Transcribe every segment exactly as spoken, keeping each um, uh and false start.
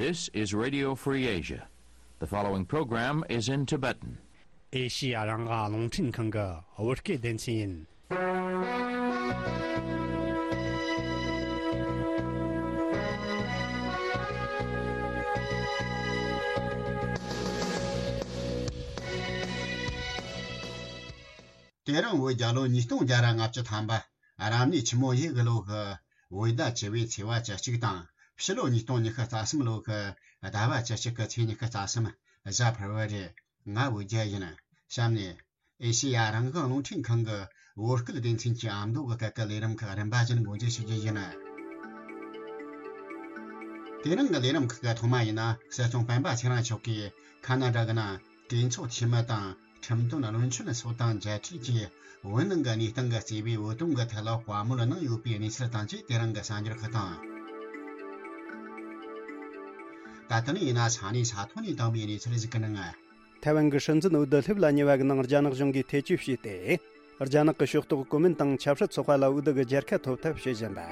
This is Radio Free Asia. The following program is in Tibetan. ཨེ་ཤི་ཡ་རང་དབང་རླུང་འཕྲིན་ཁང་གི་བོད་སྐད་སྡེ་ཚན་ཡིན། དེ་རིང་བོད་རྒྱལ་ལོ་ཉིས་སྟོང་བརྒྱ་ར་ལྔ་བཅུ་ཐམ་པ། རབ་གནས་ཆུ་མོ་ཡོས་གི་ལོ་གི་བོད་ཟླ་བཅུ་པའི་ཚེས་པ་བཅུ་གཅིག་དང་། ཕྱི་ལོ་ཉིས་སྟོང་ཉི་ཤུ་རྩ་གསུམ་ལོ་གི་ཟླ་བ་བཅུ་གཅིག་གི་ཚེས་ཉི་ཤུ་རྩ་གསུམ། གཟའ་ཕུར་བུ་རེད། ང་བོད་རྒྱལ་ཡིན། གཤམ་ནས་ཨེ་ཤེ་ཡ་རང་དབང་རླུང་འཕྲིན་ཁང་གི་བོད་སྐད་སྡེ་ཚན་གྱི་ཨ་མདོ་གི་སྐད་ཀྱི་ལས་རིམ་ཁག་རིམ་པ་བཞིན་འགོ་འཛུགས་ཞུ་རྒྱུ་ཡིན། དེ་རིང་གི་ལས་རིམ་ཁག་གི་ཐོག་མ་ཡིན་ན། སྲིད་སྐྱོང་སྤེན་པ་ཚེ་རིང་མཆོག་གིས་ཁ་ན་ཌ་གི་ནང་གྲོས་ཚོགས་འཐུས་མི་དང་ཁྲིམས་དོན་བློན་ཆེན་སོགས་དང་མཇལ་འཕྲད་ཀྱིས། བོད་ནང་གི་གནས་སྟངས་ཀྱི་གཙོས་པའི་བོད་དོན་གྱི་ཐད་ལ་བཀའ་མོལ་གནང་ཡོད་པའི་གནས་ཚུལ་དང་བཅས། དེ་རིང་གི་གསར་འགྱུར་ཁག་དང་། ད་ལྟ་ནས་ཡིན་ན་ས་གནས་ས་ཐོག་ནས་བཏང་བའི་གནས་ཚུལ་ཞིག་གི་ནང་། ཐའེ་ཝན་གྱི་སྲིད་འཛིན་འོས་བསྡུ་སླེབས་ལ་ཉེ་བ་གི་ནང་རྒྱ་ནག་གཞུང་གིས་ཐེ་བྱུས་བྱས་ཏེ། རྒྱ་ནག་གི་ཕྱོགས་གཏོགས་གོ་མིན་ཏང་ཆབ་སྲིད་ཚོགས་པ་ལ་འོས་བསྡུ་གི་རྒྱལ་ཁ་ཐོབ་ཐབས་བྱེད་བཞིན་པ།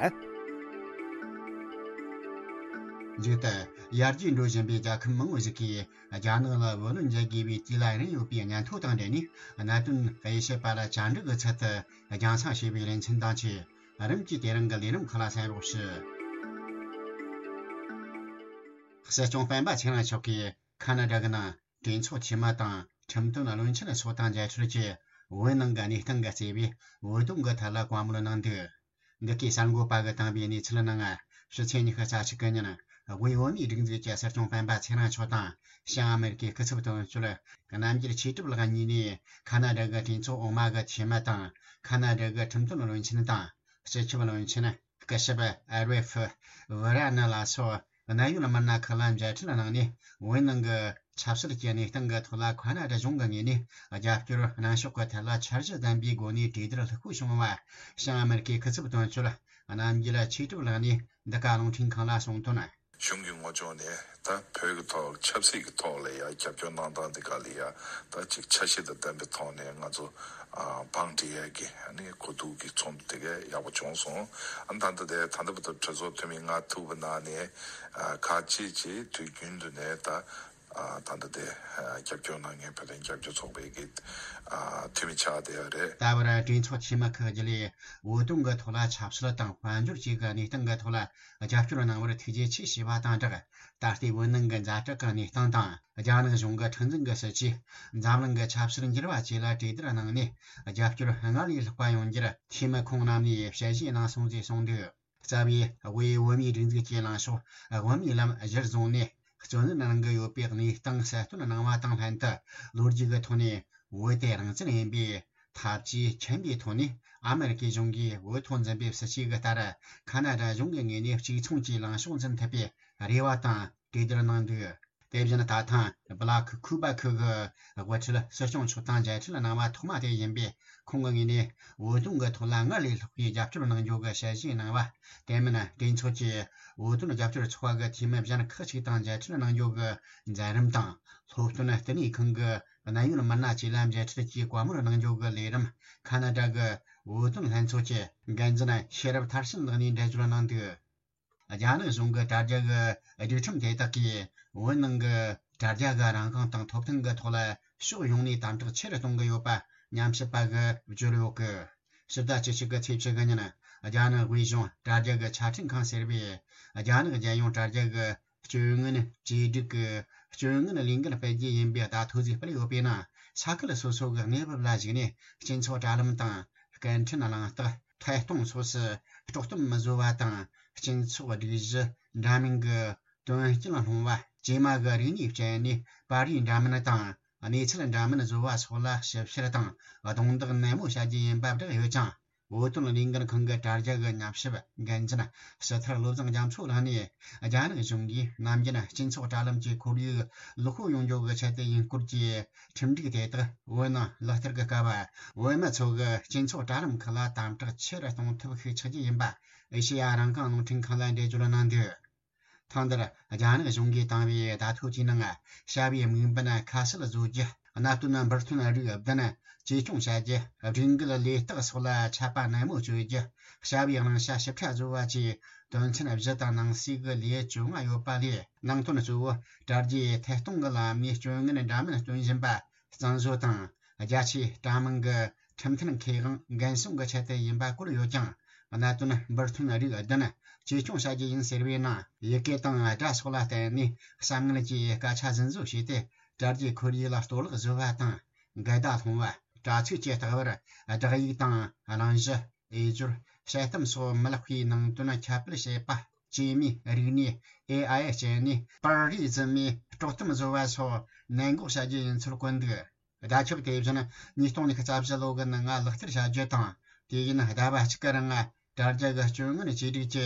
མཇུག་ཏུ། ཡར་རྒྱས་འགྲོ་བཞིན་པའི་རྒྱལ་ཁབ་མང་བོ་ཞིག་གིས་རྒྱ་ནག་ལ་བུ་ལོན་འཇལ་དགོས་པའི་དུས་ལ་རན་ཡོད་པའི་སྙན་ཐོ་དང་འབྲེལ་ནས། གནད་དོན་དབྱེ་ཞིབ་པ་ལ་བཅར་འདྲི་གི་ཚུལ་དུ་རྒྱང་སྲིང་བྱས་པའི་ལེ་ཚན་དང་བཅས། རིམ་གྱིས་དེ་རིང་གི་ལས་རིམ་ཁག་ལ་གསན་རོགས་ཞུ། སྲིད་སྐྱོང་སྤེན་པ་ཚེ་རིང་མཆོག་གིས་ཁ་ན་ཌ་གི་ནང་གྲོས་ཚོགས་འཐུས་མི་དང་ཁྲིམས་དོན་བློན་ཆེན་སོགས་དང་མཇལ་འཕྲད་ཀྱིས། བོད་ནང་གི་གནས་སྟངས་ཀྱི་གཙོས་པའི་བོད་དོན་གྱི་ཐད་ལ་བཀའ་མོལ་གནང་འདུག། འདི་གའི་གསར་འགོད་པ་གིས་བཏང་བའི་གནས་ཚུལ་ནང་། ཕྱི་ཚེས་ཉི་ཤུ་རྩ་གཅིག་གི་ཉིན། དབུས་བོད་མིའི་སྒྲིག་འཛུགས་ཀྱི་སྲིད་སྐྱོང་སྤེན་པ་ཚེ་རིང་མཆོག་དང་། བྱང་ཨ་མེ་རི་ཀའི་སྐུ་ཚབ་དོན་གཅོད་རྣམ་རྒྱལ་ཆོས་གྲུབ་ལགས་གཉིས་ནས། ཁ་ན་ཌ་གི་གྲོས་ཚོགས་འོག་མ་གི་འཐུས་མི་དང་། ཁ་ན་ཌ་གི་ཁྲིམས་དོན་བློན་ཆེན་དང་། སྤྱི་ཁྱབ་བློན་ཆེན། སྐུ་ཞབས་ཨ་རེ་ཧྥི་ཝི་ར་ནི་ལ་སོགས་གནད་ཡོད་མི་སྣ་ཁག་ལ་མཇལ་འཕྲད་གནང་ནས། བོད་ནང་གི་ཆབ་སྲིད་ཀྱི་གནས་སྟངས་ཀྱི་ཐོག་ལ་ཁ་ན་ཌ་གཞུང་གི་ངོས་ནས་རྒྱབ་སྐྱོར་གནང་ཕྱོགས་ཀྱི་ཐད་ལ་འཆར་གཞི་ལྡན་པའི་སྒོ་ནས་གྲོས་བསྡུར་ལྷུག་པོ་བྱུང་བ། བྱང་ཨ་མེ་རི་ཀའི་སྐུ་ཚབ་དོན་གཅོད་རྣམ་རྒྱལ་ཆོས་གྲུབ་ལགས་ནས་འདི་ག་རླུང་འཕྲིན་ཁང་ལ་གསུངས་དོན། གཞུང་གི་ངོས་ཕྱོགས་ནས་ད་བོད་ཀྱི་ཐོག་ཆབ་སྲིད་ཀྱི་ཐོག་ལ་ཡ་རྒྱབ་སྐྱོར་གནང་སྟངས་འདི་ག་ལ་ཡ་ད་ཅིག་འཆར་གཞི་དང་ལྡན་པའི་ཐོག་ནས་ང་ཚོ་ཨ་བང་སྒྲིག་ཡས་ཀྱི་ཨ་ནི་གོ་བསྡུར་གྱི་ཚོགས་འདུ་དེ་ག་ཡག་པོ་བྱུང་སོང་། ཨ་ནི་ད་ལྟ་དེ་ད་ལྟ་བར་དུ་གྲོས་ཚོགས་འཐུས་མི་ལྔ་ཐུག་པའི་ནང་ནས་ཨ་ཁག་ཅིག་ཅིག་དུས་རྒྱུན་དུ་ནས་ད་ཨ་ད་ལྟ་དེ་ཨ་རྒྱབ་སྐྱོར་གནང་མཁན་བོད་དོན་རྒྱབ་སྐྱོར་ཚོགས་པའི་གི་ཨ་འཐུས་མི་ཆགས་བསྡད་ཡོད་རེད། ད་བར་གྲོས་ཚོགས་འཐུས་མི་ཁག་བརྒྱུད་ལས་བོད་དོན་གྱི་ཐོག་ལ་ཆབ་སྲིད་དང་དཔལ་འབྱོར་བཅས་ཀྱི་གནས་སྟངས་ཀྱི་ཐོག་ལ་རྒྱབ་སྐྱོར་གནང་བར་ཐུགས་རྗེ་ཆེ་ཞུས་པ་དང་སྦྲགས། ད་ལྟའི་བོད་ནང་གི་ཛ་དྲག་གི་གནས་སྟངས་དང་། རྒྱ་ནག་གཞུང་གི་ཁྲིམས་འཛིན་གྱི་སྲིད་བྱུས། འཛམ་གླིང་གི་ཆབ་སྲིད་འགྱུར་བ་བཅས་ལ་གྲོས་བསྡུར་གནང་ནས། རྒྱབ་སྐྱོར་སྔར་ལས་ལྷག་པ་ཡོང་རྒྱུར་འཐུས་མི་ཁོང་རྣམས་ནས་དཔྱད་ཞིབ་གནང་སོང་ཞེས་གསུངས་འདུག། རྩ་བའི་དབུས་བོད་མིའི་སྒྲིག་འཛུགས་ཀྱི་ལངས་ཕྱོགས་དབུ་མའི་ལམ་གཞིར་བཟུང་ནས། བརྩོན་ལེན་གནང་གི་ཡོད་པའི་གནས་སྟངས་གསལ་སྟོན་གནང་བ་དང་ལྷན་དུ། ལོ་རྒྱུས་ཀྱི་ཐོག་ནས་བོད་དེ་རང་བཙན་ཡིན་པའི་ཐབས་ཇུས་མཁྱེན་པའི་ཐོག་ནས། ཨ་མེ་རི་ཀའི་གཞུང་གིས་བོད་ཐོག་འཛིན་པའི་སྲིད་བྱུས་ཀྱི་ལྟར། ཁ་ན་ཌ་གཞུང་གི་ངོས་ནས་གཅིག་མཚུངས་ཀྱི་ལངས་ཕྱོགས་འཛིན་ཐུབ་པའི་རེ་བ་དང་གྲོས་བསྡུར་གནང་འདུག། དེ་བཞིན་ད་ཐེངས་སྦ་ལ་ཁི་ཁུ་པ་ཁི་གི་དབུ་ཁྲིད་སྲིད་སྐྱོང་མཆོག་དང་མཇལ་འཕྲད་གནང་བ་ཐོག་མ་དེ་ཡིན་པས། ཁོང་གི་ངོས་ནས་བོད་དོན་གྱི་ཐོག་ལ་སྔར་ལས་ལྷག་པའི་རྒྱབ་སྐྱོར་གནང་རྒྱུ་གི་ཞལ་བཞེས་གནང་བ། དེ་མིན་གྲོས་ཚོགས་ཀྱི་བོད་དོན་རྒྱབ་སྐྱོར་ཚོགས་པ་གི་འཐུས་མི་གཞན་ཁག་ཅིག་དང་མཇལ་འཕྲད་གནང་རྒྱུ་གི་མཛད་རིམ་དང་། སློབ་སྟོན་ལྟེ་གནས་ཁང་གི་གནད་ཡོད་མི་སྣ་བཅས་ལ་མཇལ་འཕྲད་ཀྱིས་བཀའ་མོལ་གནང་རྒྱུ་གི་ལས་རིམ། ཁ་ན་ཌ་གི་བོད་དོན་ལྷན་ཚོགས་ཀྱི་འགན་འཛིན་ཤེས་རབ་མཐར་ཕྱིན་ལགས་ནས་འགྲེལ་བརྗོད་གནང་འདུག། རྒྱ་ནག་གཞུང་གི་དྲ་རྒྱ་གི་སྒྲིག་ཁྲིམས་དེ་དག་གིས་བོད་ནང་གི་དྲ་རྒྱ་གི་རང་དབང་དང་ཐོབ་ཐང་གི་ཐོག་ལ་ཕྱོགས་ཡོངས་ནས་དམ་དྲག་ཆེ་རུ་གཏོང་གི་ཡོད་པ་ཉམས་ཞིབ་པ་གིས་བརྗོད་ཡོད་གི། ཕྱི་ཟླ་བཅུ་གཅིག་གི་ཚེས་བཅུ་དགུ་ཉིན། རྒྱ་ནག་དབུས་གཞུང་དྲ་རྒྱ་གི་ཆ་འཕྲིན་ཁང་ཟེར་བས། རྒྱ་ནག་རྒྱལ་ཡོངས་དྲ་རྒྱ་གི་སྤྱོད་ངན་བཅོས་སྒྲིག་གི་སྤྱོད་ངན་ལས་འགན་སྤེལ་རྒྱུ་ཡིན་པའི་བརྡ་ཐོ་ཞིག་སྤེལ་ཡོད་པས་ན། ས་ཁུལ་སོ་སོ་གི་གནས་བབ་ལ་གཞིགས་ནས། སྤྱི་ཚོགས་དྲ་ལམ་དང་། སྐད་འཕྲིན་གླེང་སྟེགས། ཐད་གཏོང་སོགས་སུ་དཀྲོག་གཏམ་མི་བཟོ་བ་དང་། སྤྱི་ཚོགས་སྒྲིག་གཞི་འདྲ་མིན་གྱི་དོན་རྐྱེན་སློང་བ། ཇེ་མང་གི་རིག་གནས་སྤྱད་ནས་པར་རིས་འདྲ་མིན་དང་གནས་ཚུལ་འདྲ་མིན་བཟོ་བ་སོགས་ལ་ཞིབ་བཤེར་དང་རྡུང་རྡེག་ནན་མོ་བྱ་རྒྱུ་ཡིན་པ་བསྒྲགས་ཡོད་ཅིང་། བོད་དོན་ལས་འགུལ་ཁང་གི་དྲ་རྒྱ་གི་ཉམས་ཞིབ་འགན་འཛིན་ཕྱི་ཐར་བློ་བཟང་རྒྱ་མཚོ་ལགས་ནས། རྒྱ་ནག་གཞུང་གིས་ནམ་རྒྱུན་སྤྱི་ཚོགས་དྲ་ལམ་གྱི་ཁོར་ཡུག་ལེགས་པོ་ཡོང་རྒྱུ་གི་ཆེད་དུ་ཡིན་སྐོར་གྱི་ཁྲིམས་སྒྲིག་དེ་དག་བོད་ནང་ལག་བསྟར་གྱི་སྐབས། བོད་མི་ཚོ་གི་སྤྱི་ཚོགས་དྲ་ལམ་ཁག་ལ་དམ་དྲག་ཆེ་རུ་གཏོང་ཐབས་ཤུགས་ཆག་རྒྱུ་ཡིན་པ་ཨེ་ཤེ་ཡ་རང་དབང་རླུང་འཕྲིན་ཁང་ལ་འགྲེལ་བརྗོད་གནང་འདུག། ཐེངས་འདིར་རྒྱ་ནག་གཞུང་གིས་བཏང་བའི་བརྡ་ཐོ་དེའི་ནང་། བྱ་བའི་དམིགས་འབེན་ཁ་གསལ་བཟོ་རྒྱུ། གནད་དོན་འབུར་ཐོན་རིགས་བདུན་གཅེས་སྐྱོང་བྱ་རྒྱུ། སྒྲིག་འགལ་ལས་རྟགས་སོགས་ལ་ཆད་པ་ནན་མོ་གཅོད་རྒྱུ། བྱ་བའི་བླང་བྱ་ཞིབ་ཕྲ་བཟོ་བ་བཅས་དོན་ཚན་བཞི་དང་ནང་གསེས་ཀྱི་ལེའུ་བཅོ་ལྔ་ཡོད་པ་ལས། ནང་དོན་གཙོ་བོ་དྲ་རྒྱའི་ཐད་གཏོང་གི་ལམ་ནས་སྐྱོན་ངན་འདྲ་མིན་སྟོན་བཞིན་པ་གཙང་བཟོ་དང་། རྒྱ་ཆེའི་དྲ་དམངས་ཀྱི་ཁྲིམས་མཐུན་ཁེ་དབང་འགན་སྲུང་གི་ཆེད་དུ་ཡིན་པ་བཀོད་ཡོད་ཀྱང་། གནད་དོན་འབུར་ཐོན་རིགས་བདུན་གཅེས་སྐྱོང་བྱ་རྒྱུ་ཡིན་ཟེར་བའི་ནང་ཡི་གེ་དང་སྒྲ་སོགས་ལ་བརྟེན་ནས་གསར་མངོན་གྱིས་སྐད་ཆ་ཟིན་བཟོ་བྱས་ཏེ། དྲ་རྒྱའི་ཁོར་ཡུག་ལ་གཏོར་བརླག་བཟོ་བ་དང་། འགལ་ཟླ་སློང་བ། དྲ་ཚིགས་ཀྱི་ལྟ་བར་སྒྲ་ཡིག་དང་གླེང་གཞི། དབྱེ་སྦྱོར། དཔྱད་གཏམ་སོགས་མི་ལེགས་པའི་ནང་དོན་ཁྱབ་སྤེལ་བྱེད་པ། སྐྱེས་མའི་རིག་གནས་ཨེ་ཨའི་སྤྱད་ནས་པར་རིས་འཛིན་མའི་དཀྲོག་གཏམ་བཟོ་བ་སོགས་ནན་འགོག་བྱ་རྒྱུ་ཡིན་ཚུལ་བཀོད་འདུག་བརྡ་ཁྱབ་དེ་བཞིན་ཉིས་སྟོང་ཉི་ཤུ་རྩ་བཞི་ལོ་གི་ནང་ལག་བསྟར་བྱ་རྒྱུ་དང་། དུས་ཡུན་ཟླ་བ་གཅིག་གི་རིང་དྲ་རྒྱ་གི་སྐྱོན་ངན་བཅོས་སྒྲིག་གི་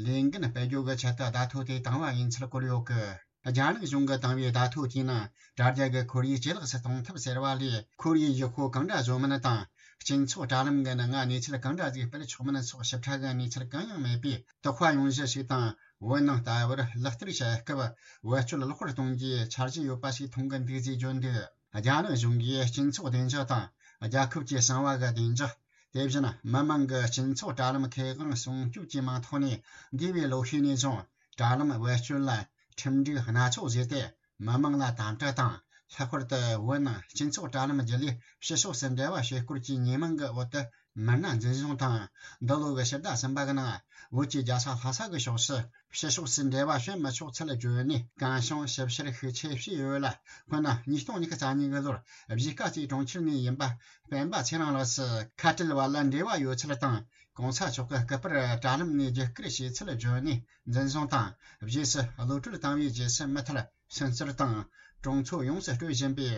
ལས་འགན་སྤེལ་རྒྱུ་གི་ཆེད་དུ་བརྡ་ཐོ་དེ་བཏང་བ་ཡིན་ཚུལ་བཀོད་ཡོད་གི། རྒྱ་ནག་གཞུང་གིས་བཏང་བའི་བརྡ་ཐོ་དེའི་ནང་དྲ་རྒྱ་གི་ཁོར་ཡུག་ཇེ་ལེགས་སུ་གཏོང་ཐབས་ཟེར་བ་ལས། ཁོར་ཡུག་ཡག་པོ་གང་འདྲ་བཟོ་མིན་དང་། སྤྱི་ཚོགས་དྲ་ལམ་གྱི་ནང་གནས་ཚུལ་གང་འདྲ་ཞིག་སྤེལ་ཆོག་མིན་སོགས་ཞིབ་ཕྲ་གི་གནས་ཚུལ་གང་ཡང་མེད་པས། དོགས་པ་ཡོང་གཞི་ཞིག་དང་། བོད་ནང་ལྟ་བུར་ལག་བསྟར་བྱེད་སྐབས་བེད་སྤྱོད་ལེགས་པར་གཏོང་རྒྱུའི་འཆར་གཞི་ཡོད་པ་ཞིག་མཐོང་གི་འདུག་ཅེས་བརྗོད་འདུག་རྒྱ་ནག་གཞུང་གིས་སྤྱི་ཚོགས་བདེ་འཇགས་དང་། རྒྱལ་ཁབ་ཀྱི་གསང་བ་གི་བདེ་འཇགས། དེ་བཞིན་མི་དམངས་ཀྱི་སྤྱི་ཚོགས་དྲ་ལམ་ཁེ་དབང་སྲུང་སྐྱོབ་ཀྱི་མིང་ཐོག་ནས། འདས་པའི་ལོ་ཤས་ནས་བཟུང་དྲ་ལམ་བེད་སྤྱོད་ལ་ཁྲིམས་སྒྲིག་སྣ་ཚོགས་བཟོས་ཏེ། མི་དམངས་ལ་དམ་དྲག་དང་། ལྷག་པར་དུ་བོད་ནང་སྤྱི་ཚོགས་དྲ་ལམ་བརྒྱུད་ལས་ཕྱི་ཕྱོགས་སུ་འབྲེལ་བ་བྱེད་སྐོར་གྱི་ཉེས་མིང་གི་འོག་ཏུ་མི་སྣ་འཛིན་བཟུང་དང་། འདི་ལོ་གི་ཕྱི་ཟླ་གསུམ་པ་གི་ནང་བོད་ཀྱི་རྒྱལ་ས་ལྷ་ས་གི་ཕྱོགས་སུ་ཕྱི་ཕྱོགས་སུ་འབྲེལ་བ་བྱེད་མི་ཆོག་ཚུལ་བརྗོད་ནས། གང་བྱུང་ཞིབ་བཤེར་ཤུགས་ཆེ་བྱས་ཡོད་ལ། སྔོན་ན་ཉིས་སྟོང་ཉི་ཤུ་རྩ་གཉིས་གི་ལོར་གཞིས་ཀ་རྩེའི་གྲོང་ཁྱེར་ནས་ཡིན་པ་སྤེན་པ་ཚེ་རིང་ལགས་སུ་ཁ་བྲལ་བ་ལ་འབྲེལ་བ་ཡོད་ཚུལ་དང་། གོང་ས་མཆོག་གི་སྐུ་པར་དྲ་ལམ་ནས་བརྒྱུད་བསྐུར་བྱས་ཚུལ་བརྗོད་ནས་འཛིན་བཟུང་དང་། རྗེས་སུ་གློད་གྲོལ་བཏང་བའི་རྗེས་སུ་མུ་མཐུད་སུན་གཙེར་དང་གྲོང་ཚོ་ཡོངས་སུ་སྤྲོད་བཞིན་པའི་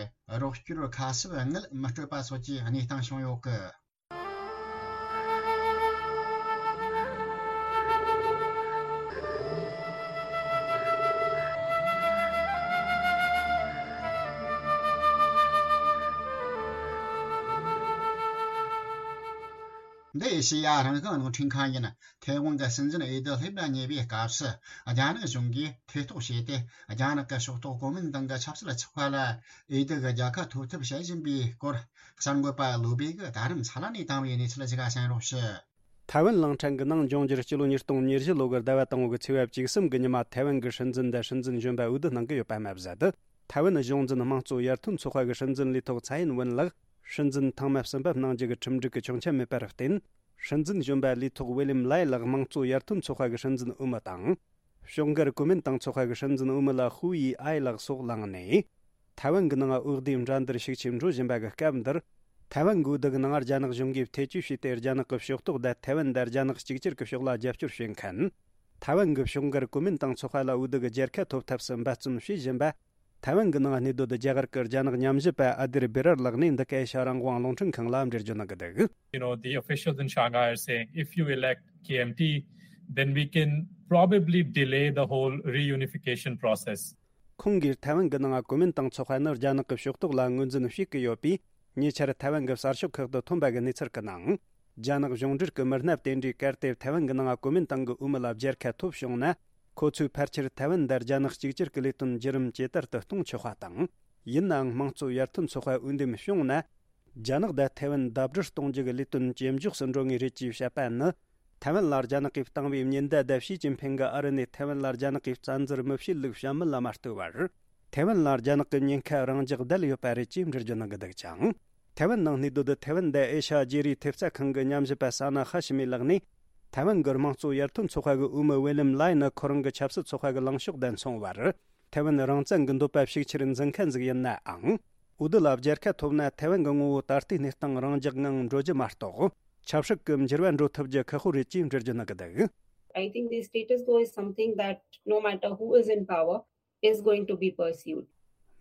རོགས་སྐྱོར་ཁ་གསབ་དངུལ་མི་སྤྲོད་པ་སོགས་ཀྱི་གནས་སྟངས་བྱུང་ཡོད་སྐད། འདི་ཨེ་ཤེ་ཡ་རང་དབང་རླུང་འཕྲིན་ཁང་ཡིན། ཐའེ་ཝན་གྱི་སྲིད་འཛིན་འོས་བསྡུ་སླེབས་ལ་ཉེ་བའི་སྐབས་སུ། རྒྱ་ནག་གཞུང་གིས་ཐེ་གཏོགས་བྱས་ཏེ། རྒྱ་ནག་གི་ཕྱོགས་གཏོགས་གོ་མིན་ཏང་གི་ཆབ་སྲིད་ཚོགས་པ་ལ་འོས་བསྡུ་གི་རྒྱལ་ཁ་ཐོབ་ཐབས་བྱེད་བཞིན་པའི་སྐོར། གསར་འགོད་པ་བློ་བྷེ་གིས་ད་རིང་ས་ལ་ནས་བཏང་བའི་གནས་ཚུལ་ཞིག་གསན་རོགས་ཞུ། ཐའེ་ཝན་གླིང་ཕྲན་གྱི་ནང་འབྱུང་འགྱུར་སྤྱི་ལོ་ཉིས་སྟོང་ཉེར་བཞི་ལོ་གི་ཟླ་བ་དང་པོ་གི་ཚེས་པ་བཅུ་གསུམ་གྱི་ཉི་མ། ཐའེ་ཝན་གྱི་སྲིད་འཛིན་དང་སྲིད་འཛིན་གཞོན་པ་འོས་བསྡུ་གནང་གི་ཡོད་པ་མ་ཟད། ཐའེ་ཝན་གཞུང་འཛིན་དམངས་གཙོ་ཡར་ཐོན་ཚོགས་པ་གི་སྲིད་འཛིན་ལས་ཐོག་ཚའེ་ཡིན་ཝུན་ལགས་སྲིད་འཛིན་ཐེངས་མ་གསུམ་པ་གནང་རྒྱུ་གི་ཁྲིམས་སྒྲིག་གི་ཆོག་མཆན་མེད་པར་བརྟེན། སྲིད་འཛིན་གཞོན་པ་ལས་ཐོག་ཝེ་ལིམ་ལའེ་ལགས་དམངས་གཙོ་ཡར་ཐོན་ཚོགས་པ་གི་སྲིད་འཛིན་འོས་མི་དང་། ཕྱོགས་འགལ་གོ་མིན་ཏང་ཚོགས་པ་གི་སྲིད་འཛིན་འོས་མི་ལ་ཧུའུ་ཡི་ཨའེ་ལགས་སོགས་ལངས་ནས། ཐའེ་ཝན་གྱི་ནང་འོས་བསྡུའི་འགྲན་བསྡུར་ཤུགས་ཆེ་འགྲོ་བཞིན་པ་གི་སྐབས་འདིར། ཐའེ་ཝན་གྱི་འོས་བསྡུ་གི་ནང་རྒྱ་ནག་གཞུང་གིས་ཐེ་བྱུས་བྱས་ཏེ། རྒྱ་ནག་གི་ཕྱོགས་གཏོགས་དང་ཐའེ་ཝན་དང་རྒྱ་ནག་གཅིག་གྱུར་གྱི་ཕྱོགས་ལ་རྒྱབ་སྐྱོར་བྱེད་མཁན། ཐའེ་ཝན་གྱི་ཕྱོགས་འགལ་གོ་མིན་ཏང་ཚོགས་པ་ལ་འོས་བསྡུ་གི་རྒྱལ་ཁ་ཐོབ་ཐབས་སུ་འབད་བརྩོན་བྱེད་བཞིན་པ། ཐའེ་ཝན་གྱི་ནང་གནས་སྡོད་རྒྱ་གར་གྱི་རྒྱ་ནག་ཉམས་ཞིབ་པ་ཨ་དིར་བེ་རར་ལགས་ནས་འདི་ག་ཨེ་ཤ་རང་དབང་རླུང་འཕྲིན་ཁང་ལ་འགྲེལ་བརྗོད་གནང་གི་འདུག You know, the officials in Shanghai are saying, if you elect K M T, then we can probably delay the whole reunification process. ཁོང་གིས་ཐའེ་ཝན་གྱི་ནང་གོ་མིན་ཏང་ཚོགས་པ་ནི་རྒྱ་ནག་གི་ཕྱོགས་གཏོགས་ལ་ངོས་འཛིན་བྱེད་ཀྱི་ཡོད་པས། ཉེ་ཆར་ཐའེ་ཝན་གྱི་གསར་ཤོག་ཁག་ཏུ་ཐོན་པ་གི་གནས་ཚུལ་གྱི་ནང་། རྒྱ་ནག་གཞུང་འབྲེལ་གྱི་མི་སྣ་དེ་འདྲས་གལ་ཏེ་ཐའེ་ཝན་གྱི་ནང་གོ་མིན་ཏང་གི་འོས་མི་ལ་རྒྱལ་ཁ་ཐོབ་བྱུང་ན། ཁོ་ཚོས་ཕལ་ཆེར་ཐའེ་ཝན་དང་རྒྱ་ནག་གཅིག་གྱུར་གྱི་ལས་དོན་བརྒྱུད་རིམ་ཇེ་དར་དུ་གཏོང་ཆོག་པ་དང་། ཡིན་ནའང་དམངས་གཙོ་ཡར་ཐོན་ཚོགས་པ་འོས་འདེམས་བྱུང་ན། རྒྱ་ནག་དང་ཐའེ་ཝན་ཟླ་སྒྲིལ་གཏོང་རྒྱུ་གི་ལས་དོན་ཇེ་མགྱོགས་སུ་འགྲོ་ངེས་རེད་ཅེས་བཤད་པ་ནི། ཐའེ་ཝན་ལ་རྒྱ་ནག་གིས་བཏང་བའི་ཉེན་བརྡ་དང་ཞི་ཅིན་ཕིང་གིས་ཨ་རི་ནས་ཐའེ་ཝན་ལ་རྒྱ་ནག་གིས་བཙན་འཛུལ་མི་བྱེད་ལུགས་བཤད་མིན་ལ་མ་ལྟོས་པར། ཐའེ་ཝན་ལ་རྒྱ་ནག་གི་ཉེན་ཁ་རང་འཇགས་བསྡད་ཡོད་པ་རེད་ཅེས་འགྲེལ་བརྗོད་གནང་གི་འདུག་ཅིང་། ཐའེ་ཝན་ནང་གནས་སྡོད་ཐའེ་ཝན་དང་ཨེ་ཤ་ཡ་བརྗེ་རེས་ཐེབས་རྩ་ཁང་གི་ཉམས་ཞིབ་པ་ས་ན་ཧ་ཤི་མི་ལགས་ནས། ཐའེ་ཝན་གྱི་དམངས་གཙོ་ཡར་ཐོན་ཚོགས་པ་གི་འོས་མི་ཝེ་ལིམ་ལའེ་ནི་ཁོ་རང་གི་ཆབ་སྲིད་ཚོགས་པ་གི་ལངས་ཕྱོགས་དང་མཚུངས་པར། ཐའེ་ཝན་རང་བཙན་གྱི་འདོད་པ་ཤུགས་ཆེར་འཛིན་མཁན་ཟིག་ཡིན་ནའང་། འོས་བསྡུ་ལ་རྒྱལ་ཁ་ཐོབ་ན་ཐའེ་ཝན་གྱི་ངོ་བོ་ད་ལྟའི་གནས་སྟངས་རང་འཇགས་ངང་འགྲོ་རྒྱུ་མ་གཏོགས། ཆབ་སྲིད་ཀྱི་འགྱུར་བ་འགྲོ་ཐུབ་རྒྱུ་ཁག་པོ་རེད་ཅེས་འགྲེལ་བརྗོད་གནང་གི་འདུག I think the status quo is something that no matter who is in power is going to be pursued.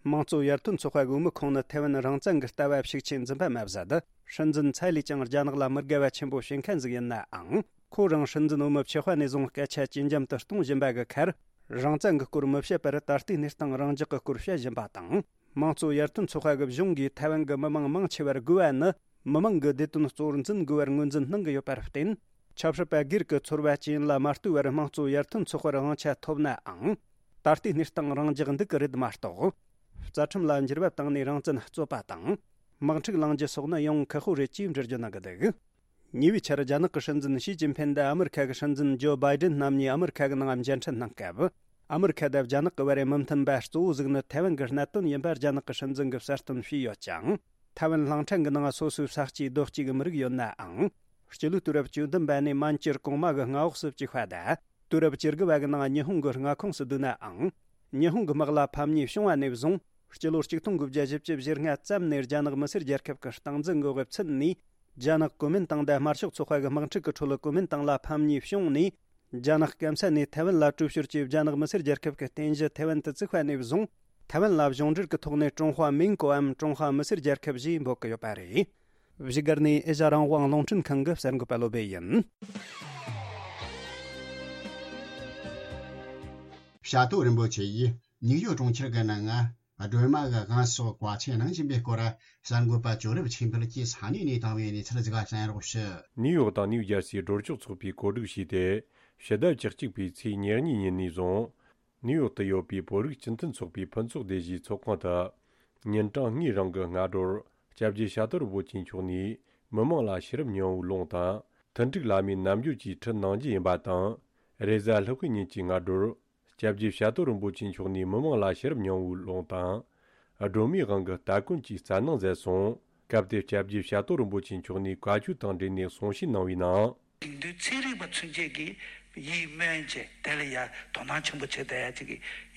དམངས་གཙོ་ཡར་ཐོན་ཚོགས་པ་གི་འོས་མི་ཁོང་ནི་ཐའེ་ཝན་རང་བཙན་གྱི་ལྟ་བ་ཤུགས་ཆེ་འཛིན་པ་མ་ཟད། སྲིད་འཛིན་ཚའེ་ལི་ཅང་རྒྱ་ནག་ལ་མི་དགའ་བ་ཆེན་པོ་བྱེད་མཁན་ཟིག་ཡིན་ནའང་། ཁོ་རང་སྲིད་འཛིན་འོས་མི་བྱེད་པ་ནས་བཟུང་སྐད་ཆ་ཇེ་འཇམ་དུ་གཏོང་བཞིན་པ་གི་ཁར། རང་བཙན་གྱི་སྐོར་མི་བཤད་པར་ད་ལྟའི་གནས་སྟངས་རང་འཇགས་ཀྱི་སྐོར་བཤད་བཞིན་པ་དང་། དམངས་གཙོ་ཡར་ཐོན་ཚོགས་པ་གི་གཞུང་གིས་ཐའེ་ཝན་གྱི་མི་མང་མང་ཆེ་བར་དགོས་པ་ནི། མི་མང་གི་བདེ་དོན་གཙོར་འཛིན་དགོས་པར་ངོས་འཛིན་གནང་གི་ཡོད་པར་བརྟེན། ཆབ་སྲིད་པ་སྒེར་གྱི་ཚོར་བ་ཅན་ལ་མ་ལྟོས་པར་དམངས་གཙོ་ཡར་ཐོན་ཚོགས་པར་དབང་ཆ་ཐོབ་ནའང་། ད་ལྟའི་གནས་སྟངས་རང་འཇགས་འདུག་གི་རེད་མ་གཏོགས། རྩ་ཁྲིམས་ལ་འགྱུར་བ་བཏང་ནས་རང་བཙན་རྩོད་པ་དང་། དམག་འཁྲུག་ལངས་རྒྱུ་སོགས་ནི་ཡང་ཁག་པོ་རེད་ཅེས་འགྲེལ་བརྗོད་གནང་གི་འདུག། ཉེ་བའི་ཆར་རྒྱ་ནག་གི་སྲིད་འཛིན་ཞི་ཅིན་ཕིན་དང་ཨ་མི་རི་ཁ་གི་སྲིད་འཛིན་ཇོ་བྷའི་ཌེན་རྣམ་གཉིས་ཨ་མི་རི་ཁ་གི་ནང་མཇལ་འཕྲད་གནང་སྐབས། ཨ་མི་རི་ཁ་དང་རྒྱ་ནག་གི་བར་མི་མཐུན་པ་གཙོ་བོ་ཟིག་ནི་ཐའེ་ཝན་གྱི་གནད་དོན་ཡིན་པ་རྒྱ་ནག་གི་སྲིད་འཛིན་གྱིས་གསལ་སྟོན་བྱས་ཡོད་ཅིང་། ཐའེ་ཝན་གླིང་ཕྲན་གྱི་ནང་སོ་སོའི་ས་སྐྱེས་རྡོ་སྐྱེས་ཀྱི་མི་རིགས་ཡོད་ནའང་། སྤྱི་ལོའི་དུས་རབས་བཅུ་བདུན་པ་ནས་མན་ཇུར་གོང་མ་གི་མངའ་འོག་སུ་བཅུག་པ་དང་། དུས་རབས་བཅུ་དགུ་བ་གི་ནང་ཉི་ཧོང་གི་མངའ་ཁོངས་སུ་བསྡུས་ནའང་། ཉི་ཧོང་གི་དམག་ལ་ཕམ་ཉེས་བྱུང་བ་ནས་བཟུང་། སྤྱི་ལོ་ཆིག་སྟོང་དགུ་བརྒྱ་བཞི་བཅུ་ཞེ་ལྔ་ཙམ་ནས་རྒྱ་ནག་མི་སེར་རྒྱལ་ཁབ་ཀྱི་སྟངས་འཛིན་གྱི་འོས་ཚུད་ནས། རྒྱ་ནག་གོ་མིན་ཏང་དང་དམར་ཤོག་ཚོགས་པ་གི་དམག་འཁྲུག་གི་ཁྲོད་གོ་མིན་ཏང་ལ་ཕམ་ཉེས་བྱུང་ནས། རྒྱ་ནག་སྐམ་ས་ནས་ཐའེ་ཝན་ལ་དྲུད་ཤོར་གྱིས་རྒྱ་ནག་མི་སེར་རྒྱལ་ཁབ་ཀྱི་རྟེན་གཞི་ཐའེ་ཝན་དུ་བཙུགས་པ་ནས་བཟུང་། ཐའེ་ཝན་ལ་གཞུང་འབྲེལ་གྱི་ཐོག་ནས་ཀྲུང་ཧྭ་མིང་གོའམ་ཀྲུང་ཧྭ་མི་སེར་རྒྱལ་ཁབ་ཞེས་འབོད་ཀྱི་ཡོད་པ་རེད། བཞུགས་སྒར་ནས་ཨེ་ཤ་རང་དབང་རླུང་འཕྲིན་ཁང་གི་གསར་འགོད་པ་བློ་བྷེ་ཡིན། བྱ་དོ་རིན་པོ་ཆེ་ཡིས་ནིའུ་ཡོག་གྲོང་ཁྱེར་གྱི་ནང་སྒྲོལ་མ་གི་དབང་སོགས་བཀའ་ཆད་གནང་བཞིན་པའི་སྐོར། གསར་འགོད་པ་ཇོ་རིབ་ཆོས་འཕེལ་གྱིས་ས་གནས་ནས་བཏང་བའི་གནས་ཚུལ་ཟིག་གསན་རོགས་ཞུ། ནིའུ་ཡོག་དང་ནིའུ་ཇར་སིའི་སྒྲོལ་ཆོག་ཚོགས་པས་གོ་སྒྲིག་བྱས་ཏེ། ཕྱི་ཟླ་བཅུ་གཅིག་པའི་ཚེས་ཉེར་གཉིས་ཉིན་ནས་བཟུང་། ནིའུ་ཡོག་ཏུ་ཡོད་པའི་བོད་རིགས་སྤྱི་མཐུན་ཚོགས་པའི་ཕུན་ཚོགས་སྡེ་བཞིའི་ཚོགས་ཁང་དུ། ཉིན་གྲངས་གཉིས་རིང་གི་སྔ་དྲོར་སྐྱབས་རྗེ་ཤ་སྟག་རིན་པོ་ཆེ་མཆོག་ནས་མི་མང་ལ་ཤེས་རབ་སྙིང་པོའི་ལུང་དང་། མཐུན་འགྲིག་བླ་མའི་རྣལ་འབྱོར་གྱི་ཁྲིད་གནང་རྒྱུ་ཡིན་པ་དང་། རེས་གཟའ་ལྷག་པའི་ཉིན་གྱི་སྔ་དྲོར། སྐྱབས་རྗེ་ཤ་སྟག་རིན་པོ་ཆེ་མཆོག་ནས་མི་མང་ལ་ཤེས་རབ་སྙིང་པོའི་ལུང་དང་། སྒྲོལ་མའི་དབང་གི་སྟ་གོན་གྱི་སྩལ་གནང་མཛད་སོང་། སྐབས་དེར་སྐྱབས་རྗེ་ཤ་སྟག་རིན་པོ་ཆེ་མཆོག་ནས་བཀའ་ཆོས་དང་འབྲེལ་ནས་གསུང་བཤད་གནང་བའི་ནང་། དེང་དུས་ཚན་རིག་པ་ཚུན་ཆད་ཀྱིས་ཡིད་སྨོན་བྱས་དེ་ལ་ཡ་དོ་སྣང་ཆེན་པོ་བྱེད་བསྡད་ཡ་ཅིག་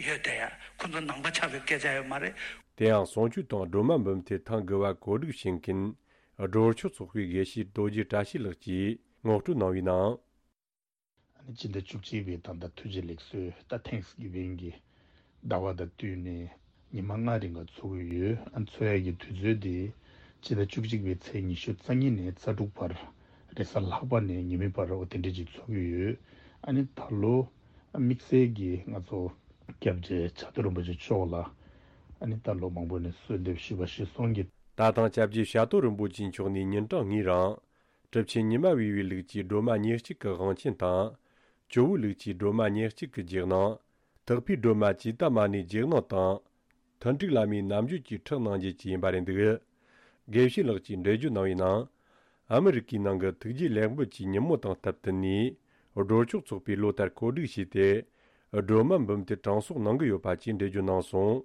ཡོད་བསྡད་ཡ། ཁོ་ཚོ་ནང་པ་ཆགས་པའི་སྐད་ཆ་ཡོད་མ་རེད། དེ་ཡང་གསུང་ཆོས་དང་སྒྲོལ་མ་འབུམ་ཐེར་ཐེངས་དགུ་བ་གོ་སྒྲིག་བྱེད་མཁན་སྒྲོལ་ཆོག་ཚོགས་པའི་དགེ་བཤེས་རྡོ་རྗེ་བཀྲ་ཤིས་ལགས་ཀྱིས་ངོ་སྤྲོད་གནང་བའི་ནང་། ཨ་ནི་སྤྱི་ཟླ་བཅུ་གཅིག་པའི་ད་ལྟ་ཐུགས་རྗེ་ལེགས་གསོལ་ད་ཐེངས་གི་བན་གྱི་ཟླ་བ་དང་བསྟུན་ནས་ཉི་མ་ལྔ་རིང་ག་འཚོགས་ཀྱི་ཡོད། ཨ་ནི་འཚོགས་ཡ་གི་དུས་ཚོད་དེ་སྤྱི་ཟླ་བཅུ་གཅིག་པའི་ཚེས་ཉི་ཤུ་རྩ་གཉིས་ནས་རྩ་དྲུག་བར་རེས་གཟའ་ལྷག་པ་ནས་ཉི་མའི་བར་འོ་དེ་འདྲ་ཅིག་འཚོགས་ཀྱི་ཡོད། ཨ་ནི་ད་ལོ་དམིགས་བསལ་གྱི་ང་ཚོ་སྐྱབས་རྗེ་ཤ་སྟག་རིན་པོ་ཆེ་མཆོག་ལ་ཨ་ནི་ད་ལོ་མང་པོ་ནས་གསོལ་འདེབས་ཞུས་པ་ཞུས་སོང་གི། ད་ཐེངས་སྐྱབས་རྗེ་ཤ་སྟག་རིན་པོ་ཆེ་མཆོག་ནས་ཉིན་གྲངས་གཉིས་རིང་། གྲུབ་ཆེན་ཉི་མ་བི་བའི་ལུགས་ཀྱི་སྒྲོལ་མ་ཉེར་གཅིག་གི་དབང་ཆེན་དང་། ཇོ་བོའི་ལུགས་ཀྱི་སྒྲོལ་མ་ཉེར་གཅིག་གི་རྗེས་གནང་། དག་པའི་སྒྲོལ་མ་ཇི་ཏ་མ་ཎིའི་རྗེས་གནང་དང་། མཐུན་འགྲིག་བླ་མའི་རྣལ་འབྱོར་གྱི་ཁྲིད་གནང་རྒྱུ་བཅས་ཡིན་པ་རེད་འདུག། དགེ་བཤེས་ལགས་ཀྱིས་འགྲེལ་བརྗོད་གནང་བའི་ནང་། ཨ་མི་རི་ཀའི་ནང་གི་ཐུགས་རྗེ་ལེགས་འབུལ་གྱི་ཉིན་མོ་དང་སྟབས་བསྟུན་ནས། སྒྲོལ་ཆོག་ཚོགས་པས་ལོ་ལྟར་གོ་སྒྲིག་བྱས་ཏེ། སྒྲོལ་མ་འབུམ་ཐེར་གྲངས་གསོག་གནང་གི་ཡོད་པ་བཅས་འགྲེལ་བརྗོད་གནང་སོང་།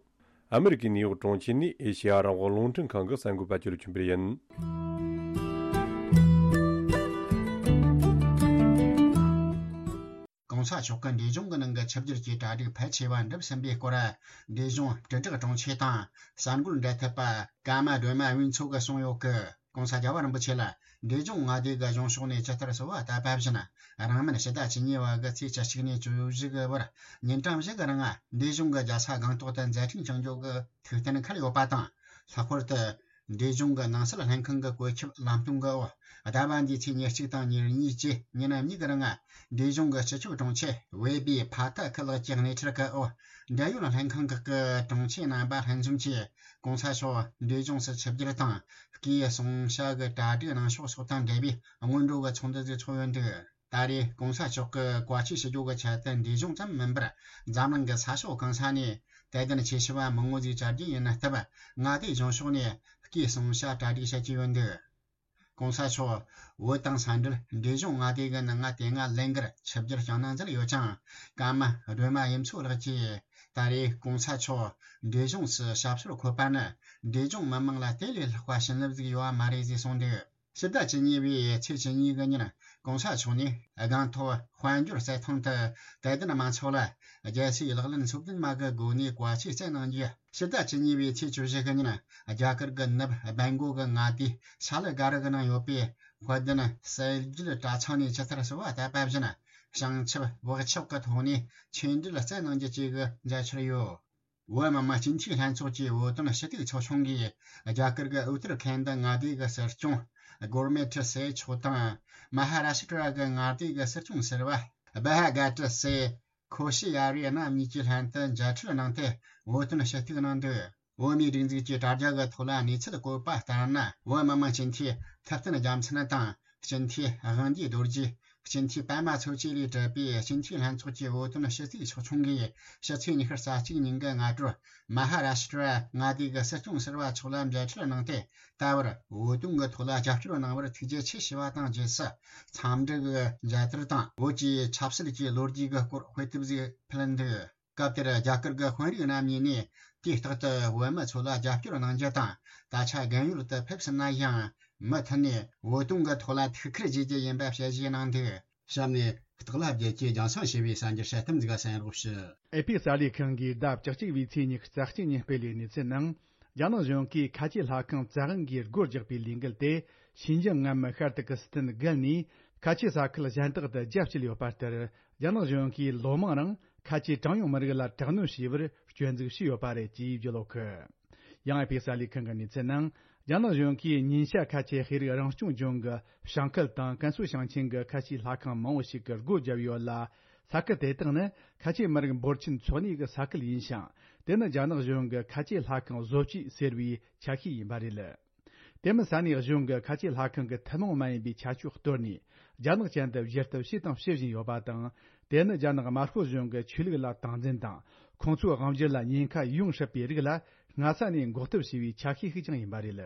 ཨ་མི་རི་ཀའི་ནིའུ་ཡོག་གྲོང་ཁྱེར་ནས་ཨེ་ཤེ་ཡ་རང་དབང་རླུང་འཕྲིན་ཁང་གི་གསར་འགོད་པ་ཅོ་ལི་ཆོས་འཕེལ་ཡིན། གོང་ས་མཆོག་གིས་འབྲས་ལྗོངས་ཀྱི་ནང་གི་ཆིབས་བསྒྱུར་གྱི་གྲ་སྒྲིག་ཕལ་ཆེ་བ་འགྲུབ་ཟིན་པའི་སྐོར། འབྲས་ལྗོངས་དྲིལ་བསྒྲགས་དྲུང་ཆེ་དང་གསར་འགོད་འབྲེལ་མཐུད་པ་ཀརྨ་སྒྲོལ་མ་དབུས་མཚོ་གིས་གསུངས་ཡོད་ཀི། གོང་ས་རྒྱལ་བ་རིན་པོ་ཆེ་ལ་འབྲས་ལྗོངས་མངའ་སྡེ་གི་གཞུང་ཕྱོགས་ནས་ཇི་ལྟར་གསོལ་བ་བཏབ་པ་བཞིན། རིང་མིན་ཕྱི་ཟླ་བཅུ་གཉིས་པ་གི་ཚེས་བཅུ་གཅིག་ནས་བཅུ་བཞི་གི་བར་ཉིན་གྲངས་བཞི་གི་རིང་འབྲས་ལྗོངས་ཀྱི་རྒྱལ་ས་སྒང་ཏོག་ཏུ་མཛད་འཕྲིན་བསྐྱངས་རྒྱུ་གི་ཐུགས་གཏན་འཁེལ་ཡོད་པ་དང་། ལྷག་པར་དུ་འབྲས་ལྗོངས་ཀྱི་ནང་སྲིད་ལྷན་ཁང་གི་བཀོད་ཁྱབ་ལམ་སྟོན་གྱི་འོག་ཟླ་བ་འདིའི་ཚེས་ཉེར་གཅིག་དང་ཉེར་གཉིས་བཅས་ཉིན་གཉིས་ཀྱི་རིང་འབྲས་ལྗོངས་ཀྱི་སྤྱི་ཁྱབ་དྲུང་ཆེ་ཝེ་པི་ཕ་ཐ་ཁི་ལགས་ཀྱིས་སྣེ་ཁྲིད་ཀྱི་འོག་འབྲེལ་ཡོད་ལྷན་ཁང་ཁག་གི་དྲུང་ཆེ་རྣམ་པ་ལྷན་འཛོམས་ཀྱིས། གོང་ས་མཆོག་འབྲས་ལྗོངས་སུ་ཆིབས་བསྒྱུར་དང་སྐུའི་གསུང་བཤད་ཀྱི་གྲ་སྒྲིག་གནང་ཕྱོགས་སོགས་དང་འབྲེལ་བའི་སྔོན་འགྲོ་གི་ཚོགས་འདུ་ཞིག་ཚོགས་ཡོད་འདུག། ད་རེས་གོང་ས་མཆོག་གིས་བཀའ་ཆོས་ཞུ་རྒྱུ་གི་ཆེད་དུ་འབྲས་ལྗོངས་ཙམ་མིན་པར་འཛམ་གླིང་གི་ས་ཕྱོགས་གང་ས་ནས་དད་ལྡན་ཆེ་ཤོས་པ་མང་བོ་ཞིག་བཅར་རྒྱུ་ཡིན་སྟབས། མངའ་སྡེའི་གཞུང་ཕྱོགས་ནས་སྐུའི་གསུང་བཤད་གྲ་སྒྲིག་བྱེད་ཀྱི་ཡོད་འདུག། གོང་ས་མཆོག་བོད་དང་ས་འབྲེལ་འབྲས་ལྗོངས་མངའ་སྡེ་གི་ནང་ང་དེ་སྔ་ལན་འགར་ཆིབས་བསྒྱུར་བསྐྱངས་གནང་མཛད་ཡོད་ཅིང་། ཀརྨ་སྒྲོལ་མ་དབུས་མཚོ་ལགས་ཀྱིས་ད་རེས་གོང་ས་མཆོག་འབྲས་ལྗོངས་སུ་ཞབས་སོར་འཁོད་པ་ནི་འབྲས་ལྗོངས་མི་དམངས་ལ་དེ་ལས་ལྷག་པ་བྱིན་རླབས་ཟིག་ཡོད་པ་མ་རེད་ཅེས་གསུངས་འདུག། ཕྱི་ཟླ་བཅུ་གཉིས་པའི་ཚེས་བཅུ་གཉིས་ཀྱི་ཉིན་གོང་ས་མཆོག་ནས་སྒང་ཏོག་དཔལ་འབྱོར་རྩེ་ཐང་དུ་དད་ལྡན་མང་ཚོགས་ལ་རྒྱལ་སྲས་ལག་ལེན་ཚོགས་བདུན་མ་གི་སྒོ་ནས་བཀའ་ཆོས་སྩལ་གནང་རྒྱུ། ཕྱི་ཟླ་བཅུ་གཉིས་པའི་ཚེས་བཅུ་བཞི་གི་ཉིན་རྒྱ་གར་གྱི་ནུབ་སྦན་གོ་གི་མངའ་སྡེ་ཤ་ལ་ག་རི་གི་ནང་ཡོད་པའི་དཔལ་ལྡན་གསལ་རྒྱལ་གྲྭ་ཚང་ནས་ཇི་ལྟར་གསོལ་བ་བཏབ་པ་བཞིན་བྱང་ཆུབ་བག་ཆགས་ཀྱི་ཐོག་ནས་ཆོས་འབྲེལ་སྩལ་གནང་རྒྱུ་བཅས་ཀྱི་མཛད་འཆར་ཡོད། བོད་མི་མང་སྤྱི་འཐུས་ལྷན་ཚོགས་ཀྱི་བོད་དོན་ཞུ་གཏུག་ཚོགས་ཆུང་གིས་རྒྱ་གར་གྱི་ཨུ་ཏར་ཁན་ད་མངའ་སྡེ་གི་སྲིད་སྐྱོང་གོར་མེ་ཏྲི་སེ་མཆོག་དང་མ་ཧ་ར་ཤི་ཏྲ་གི་མངའ་སྡེ་གི་སྲིད་སྐྱོང་ཟུར་པ་བྷ་ཧ་ག་ཏྲི་སེ་ཁོ་ཤི་ཡ་རི་རྣམ་གཉིས་ཀྱིས་ལྷན་དུ་མཇལ་འཕྲད་གནང་སྟེ་བོད་དོན་ཞུ་གཏུག་གནང་འདུག། བོད་མིའི་སྒྲིག་འཛུགས་ཀྱི་དྲ་རྒྱ་གི་ཐོག་ལ་གནས་ཚུལ་བཀོད་པ་ལྟར་ན། བོད་མི་མང་སྤྱི་འཐུས་ཐུབ་བསྟན་རྒྱལ་མཚན་དང་སྤྱི་འཐུས་དབང་འདུས་རྡོ་རྗེ། སྤྱི་འཐུས་པད་མ་མཚོ་སྐྱེས་ལས་གྲུབ་པའི་སྤྱི་འཐུས་ལྷན་ཚོགས་ཀྱི་བོད་དོན་ཞུ་གཙོས་ཚོགས་ཆུང་གིས་ཕྱི་ཚེས་ཉི་ཤུ་རྩ་གཅིག་ཉིན་གྱི་སྔ་དྲོར་མ་ཧ་ར་ཤི་ཏྲ་མངའ་སྡེ་གི་སྲིད་སྐྱོང་ཟུར་པ་མཆོག་ལ་མཇལ་འཕྲད་གནང་སྟེ། ད་བར་བོད་དོན་གྱི་ཐོག་ལ་རྒྱབ་སྐྱོར་གནང་བར་ཐུགས་རྗེ་ཆེ་ཞུས་པ་དང་། རྗེས་སུ་འཚམས་འདྲི་གི་མཇལ་དར་དང་བོད་ཀྱི་ཆབ་སྲིད་ཀྱི་ལོ་རྒྱུས་ཀྱི་སྐོར་དཔེ་དེབ་ཞིག་ཕུལ་འདུག་སྐབས་དེར་རྒྱ་གར་གྱི་དཔོན་རིགས་རྣམ་གཉིས་ནས་དུས་རྟག་ཏུ་བོད་མི་ཚོ་ལ་རྒྱབ་སྐྱོར་གནང་རྒྱུ་དང་། ད་ཆ་རྒན་ཡོལ་དུ་ཕེབས་ཟིན་ན་ཡང་མུ་མཐུད་ནས་བོད་དོན་གྱི་ཐོག་ལ་ཐུགས་ཁུར་བཞེས་རྒྱུ་ཡིན་པ་ཞལ་བཞེས་གནང་འདུག་གཤམ་ནས་སྟག་ལྷ་རྒྱལ་གྱིས་རྒྱང་སྲིང་ཞུས་པའི་གསར་འགྱུར་དཔྱད་གཏམ་འཛུགས་ག་གསན་རོགས་ཞུ། ཨེ་ཕི་གསར་ལས་ཁང་གིས་ཟླ་བཅུ་གཅིག་པའི་ཚེས་ཉི་ཤུ་རྩ་གཅིག་ཉིན་སྤེལ་བའི་གནས་ཚུལ་ནང་། རྒྱ་ནག་གཞུང་གིས་ཁ་ཆེ་ལྷ་ཁང་བཙན་དབང་གིས་སྒོ་རྒྱག་པའི་ལས་འགུལ་དེ་ཤིན་ཅང་ངམ་ཤར་ཏུར་ཀི་སི་ཐན་བརྒལ་ནས་ཁ་ཆེ་ས་ཁུལ་གཞན་དག་ཏུ་རྒྱ་བསྐྱེད་ཡོད་པ་ལྟར། རྒྱ་ནག་གཞུང་གིས་ལོ་མང་རིང་ཁ་ཆེ་གྲངས་ཉུང་མི་རིགས་ལ་དྲག་གནོན་བྱས་པར་སྐྱོན་འཛུགས་བྱས་ཡོད་པ་རེད་ཅེས་བརྗོད་ཡོད་གི། ཡང་ཨེ་ཕི་གསར་ལས་ཁང་གི་གནས་ཚུལ་ནང་། རྒྱ་ནག་གཞུང་གིས་ཉིན་ཤར་ཁ་ཆེ་ཤེས་རིག་རང་སྐྱོང་ལྗོངས་ཀྱི་ཞང་ཁུལ་དང་ཀན་སུའུ་ཞིང་ཆེན་གྱི་ཁ་ཆེ་ལྷ་ཁང་མང་བོ་ཞིག་གི་སྒོ་བརྒྱབ་ཡོད་ལ། ས་ཁུལ་དེ་དག་ནི་ཁ་ཆེ་མི་རིགས་འབོར་ཆེན་འཚོ་གནས་ཀྱི་ས་ཁུལ་ཡིན་ཞིང་། དེ་ནི་རྒྱ་ནག་གཞུང་གི་ཁ་ཆེ་ལྷ་ཁང་བཟོ་བཅོས་ཟེར་བའི་ཆ་ཤས་ཡིན་པ་རེད། དེ་མིན་ས་གནས་གཞུང་གི་ཁ་ཆེ་ལྷ་ཁང་གི་ཐུན་མོང་མ་ཡིན་པའི་ཁྱད་ཆོས་གཏོར་ནས། རྒྱ་ནག་ཅན་དུ་བསྒྱུར་ཐབས་བྱས་དང་བྱེད་བཞིན་ཡོད་པ་དང་། དེ་ནི་རྒྱ་ནག་དམར་ཤོག་གཞུང་གི་ཆོས་ལུགས་ལ་སྟངས་འཛིན་དང་། ཁོང་ཚོའི་དབང་སྒྱུར་ལ་ཉེན་ཁ་ཡོང་སྲིད་པའི་རིགས་ལ་སྔ་ས་ནས་འགོག་ཐབས་བྱས་པའི་ཆ་ཤས་ཤིག་ཀྱང་ཡིན་པ་རེད།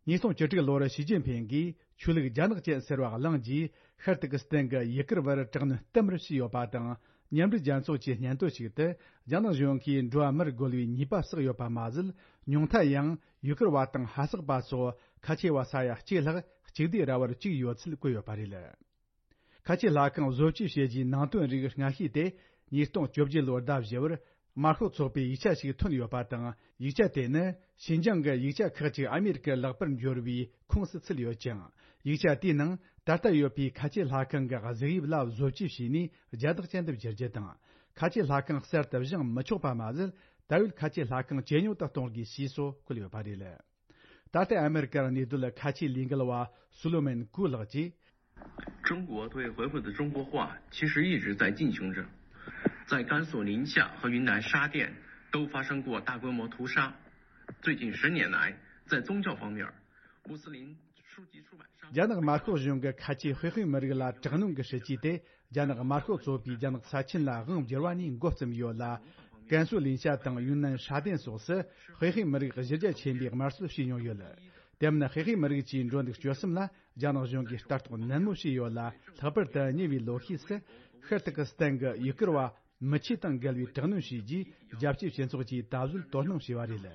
ཉིས་སྟོང་བཅུ་དྲུག་ལོར་ཞི་ཅིན་ཕིང་གིས་ཆོས་ལུགས་རྒྱ་ནག་ཅན་ཟེར་བ་བླངས་རྗེས། ཤར་ཏུར་ཀི་སི་ཐན་གྱི་ཡུ་གུར་བར་དྲག་གནོན་བསྟན་པར་བྱས་ཡོད་པ་དང་། མཉམ་འབྲེལ་རྒྱལ་ཚོགས་ཀྱི་སྙན་ཐོ་ཞིག་ཏུ། རྒྱ་ནག་གཞུང་གིས་འགྲོ་བ་མིར་རྒོལ་བའི་ཉེས་པ་བསགས་ཡོད་པ་མ་ཟད། ཉུང་མཐའ་ཡང་ཡུ་གུར་བ་དང་ཧ་སག་པ་སོགས་ཁ་ཆེ་བ་ས་ཡ་གཅིག་ལྷག་གཅིག་སྡུད་ར་བར་བཅུག་ཡོད་ཚུལ་བཀོད་ཡོད་པ་རེད། ཁ་ཆེ་ལྷ་ཁང་བཟོ་བཅོས་བྱས་རྗེས་ནང་དོན་རིགས་སྔ་ཤོས་དེ་ཉིས་སྟོང་བཅོ་བརྒྱད་ལོར་ཟླ་བཞི་པར་དམར་ཤོག་ཚོགས་པའི་ཡིག་ཆ་ཞིག་ཐོན་ཡོད་པ་དང་། ཡིག་ཆ་དེ་ནི་ཤིན་ཅང་གི་ཡིག་ཆ་ཁག་ཅིག་ཨ་མེ་རི་ཀར་ལག་པར་འབྱོར་བའི་ཁོངས་སུ་ཚུད་ཡོད་ཅིང་། ཡིག་ཆ་དེའི་ནང་ད་ལྟ་ཡོད་པའི་ཁ་ཆེ་ལྷ་ཁང་གི་གཟུགས་དབྱིབས་ལ་བཟོ་བཅོས་བྱས་ནས་རྒྱ་རྟགས་ཅན་དུ་བསྒྱུར་རྒྱུ་དང་། ཁ་ཆེ་ལྷ་ཁང་གསར་དུ་བཞེངས་མི་ཆོག་པ་མ་ཟད། ད་ཡོད་ཁ་ཆེ་ལྷ་ཁང་ཇེ་ཉུང་དུ་གཏོང་དགོས་ཞེས་སོགས་བཀོད་ཡོད་པ་རེད། ད་ལྟ་ཨ་མེ་རི་ཀར་གནས་སྡོད་ཁ་ཆེའི་ལས་འགུལ་བ་སོ་ལོ་མོན་ཀུ་ལགས་ཀྱིས། 中国对回回的中国化其实一直在进行着，在甘肃临夏和云南沙甸都发生过大规模屠杀。最近十年来，在宗教方面，穆斯林书籍出版商 རྒྱ་ནག་དམར་ཤོག་གཞུང་གིས་ཁ་ཆེའི་ཧུའེ་ཧུའེ་མི་རིགས་ལ་དྲག་གནོན་གྱི་སྲིད་ཇུས་དེ། རྒྱ་ནག་དམར་ཤོག་ཚོགས་པས་རྒྱ་ནག་ས་ཆེན་ལ་དབང་བསྒྱུར་བ་ནས་འགོ་བརྩམས་ཡོད་ལ། ཀན་སུའུ་ལིན་ཤ་དང་ཡུན་ནན་ཧྲ་ཏན་སོགས་སུ་ཧུའེ་ཧུའེ་མི་རིགས་གཞི་རྒྱ་ཆེན་པོས་དམར་གསོད་བྱས་མྱོང་ཡོད། དེ་མིན་ཧུའེ་ཧུའེ་མི་རིགས་ཀྱི་འགྲོ་འདུག་སྤྱོད་གསུམ་ལ་རྒྱ་ནག་གཞུང་གིས་ལྟ་རྟོག་ནན་མོ་བྱས་ཡོད་ལ། ལྷག་པར་དུ་ཉེ་བའི་ལོ་ཤས་སུ་ཤར་ཏུར་ཀི་སི་ཐན་གྱི་ཡུ་གུར་བ་མི་ཆོས་དང་འགལ་བའི་དྲག་གནོན་བྱས་རྗེས། རྒྱལ་སྤྱིའི་སྤྱི་ཚོགས་ཀྱིས་ད་གཟོད་དོ་སྣང་བྱས་པ་རེད།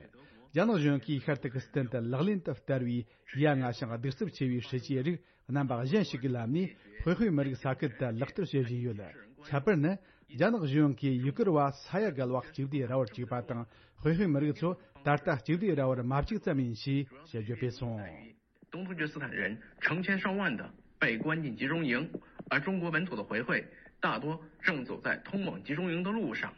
རྒྱ་ནག་གཞུང་གིས་ཤར་ཏུར་ཀི་སི་ཐན་དུ་ལག་ལེན་དུ་བསྟར་བའི་ཡ་ང་ཞིང་གདུག་རྩུབ་ཆེ་བའི་སྲིད་ཇུས་རིགས་རྣམ་པ་གཞན་ཞིག་གི་ལམ་ནས་ཧུའེ་ཧུའེ་མི་རིགས་ས་ཁུལ་དུ་ལག་བསྟར་བྱེད་བཞིན་ཡོད། ཁྱད་པར་ནི། རྒྱ་ནག་གཞུང་གིས་ཡུ་གུར་བ་ས་ཡ་བརྒལ་བ་གཅིག་སྡུད་ར་བར་བཅུག་པ་དང་། ཧུའེ་ཧུའེ་མི་རིགས་ཚོ་ད་ལྟ་གཅིག་སྡུད་ར་བར་མ་བཅུག་ཙམ་ཡིན་ཞེས་དཔྱད་བརྗོད་སྤེལ་སོང་། 东突厥斯坦人成千上万的被关进集中营，而中国本土的回回大多正走在通往集中营的路上。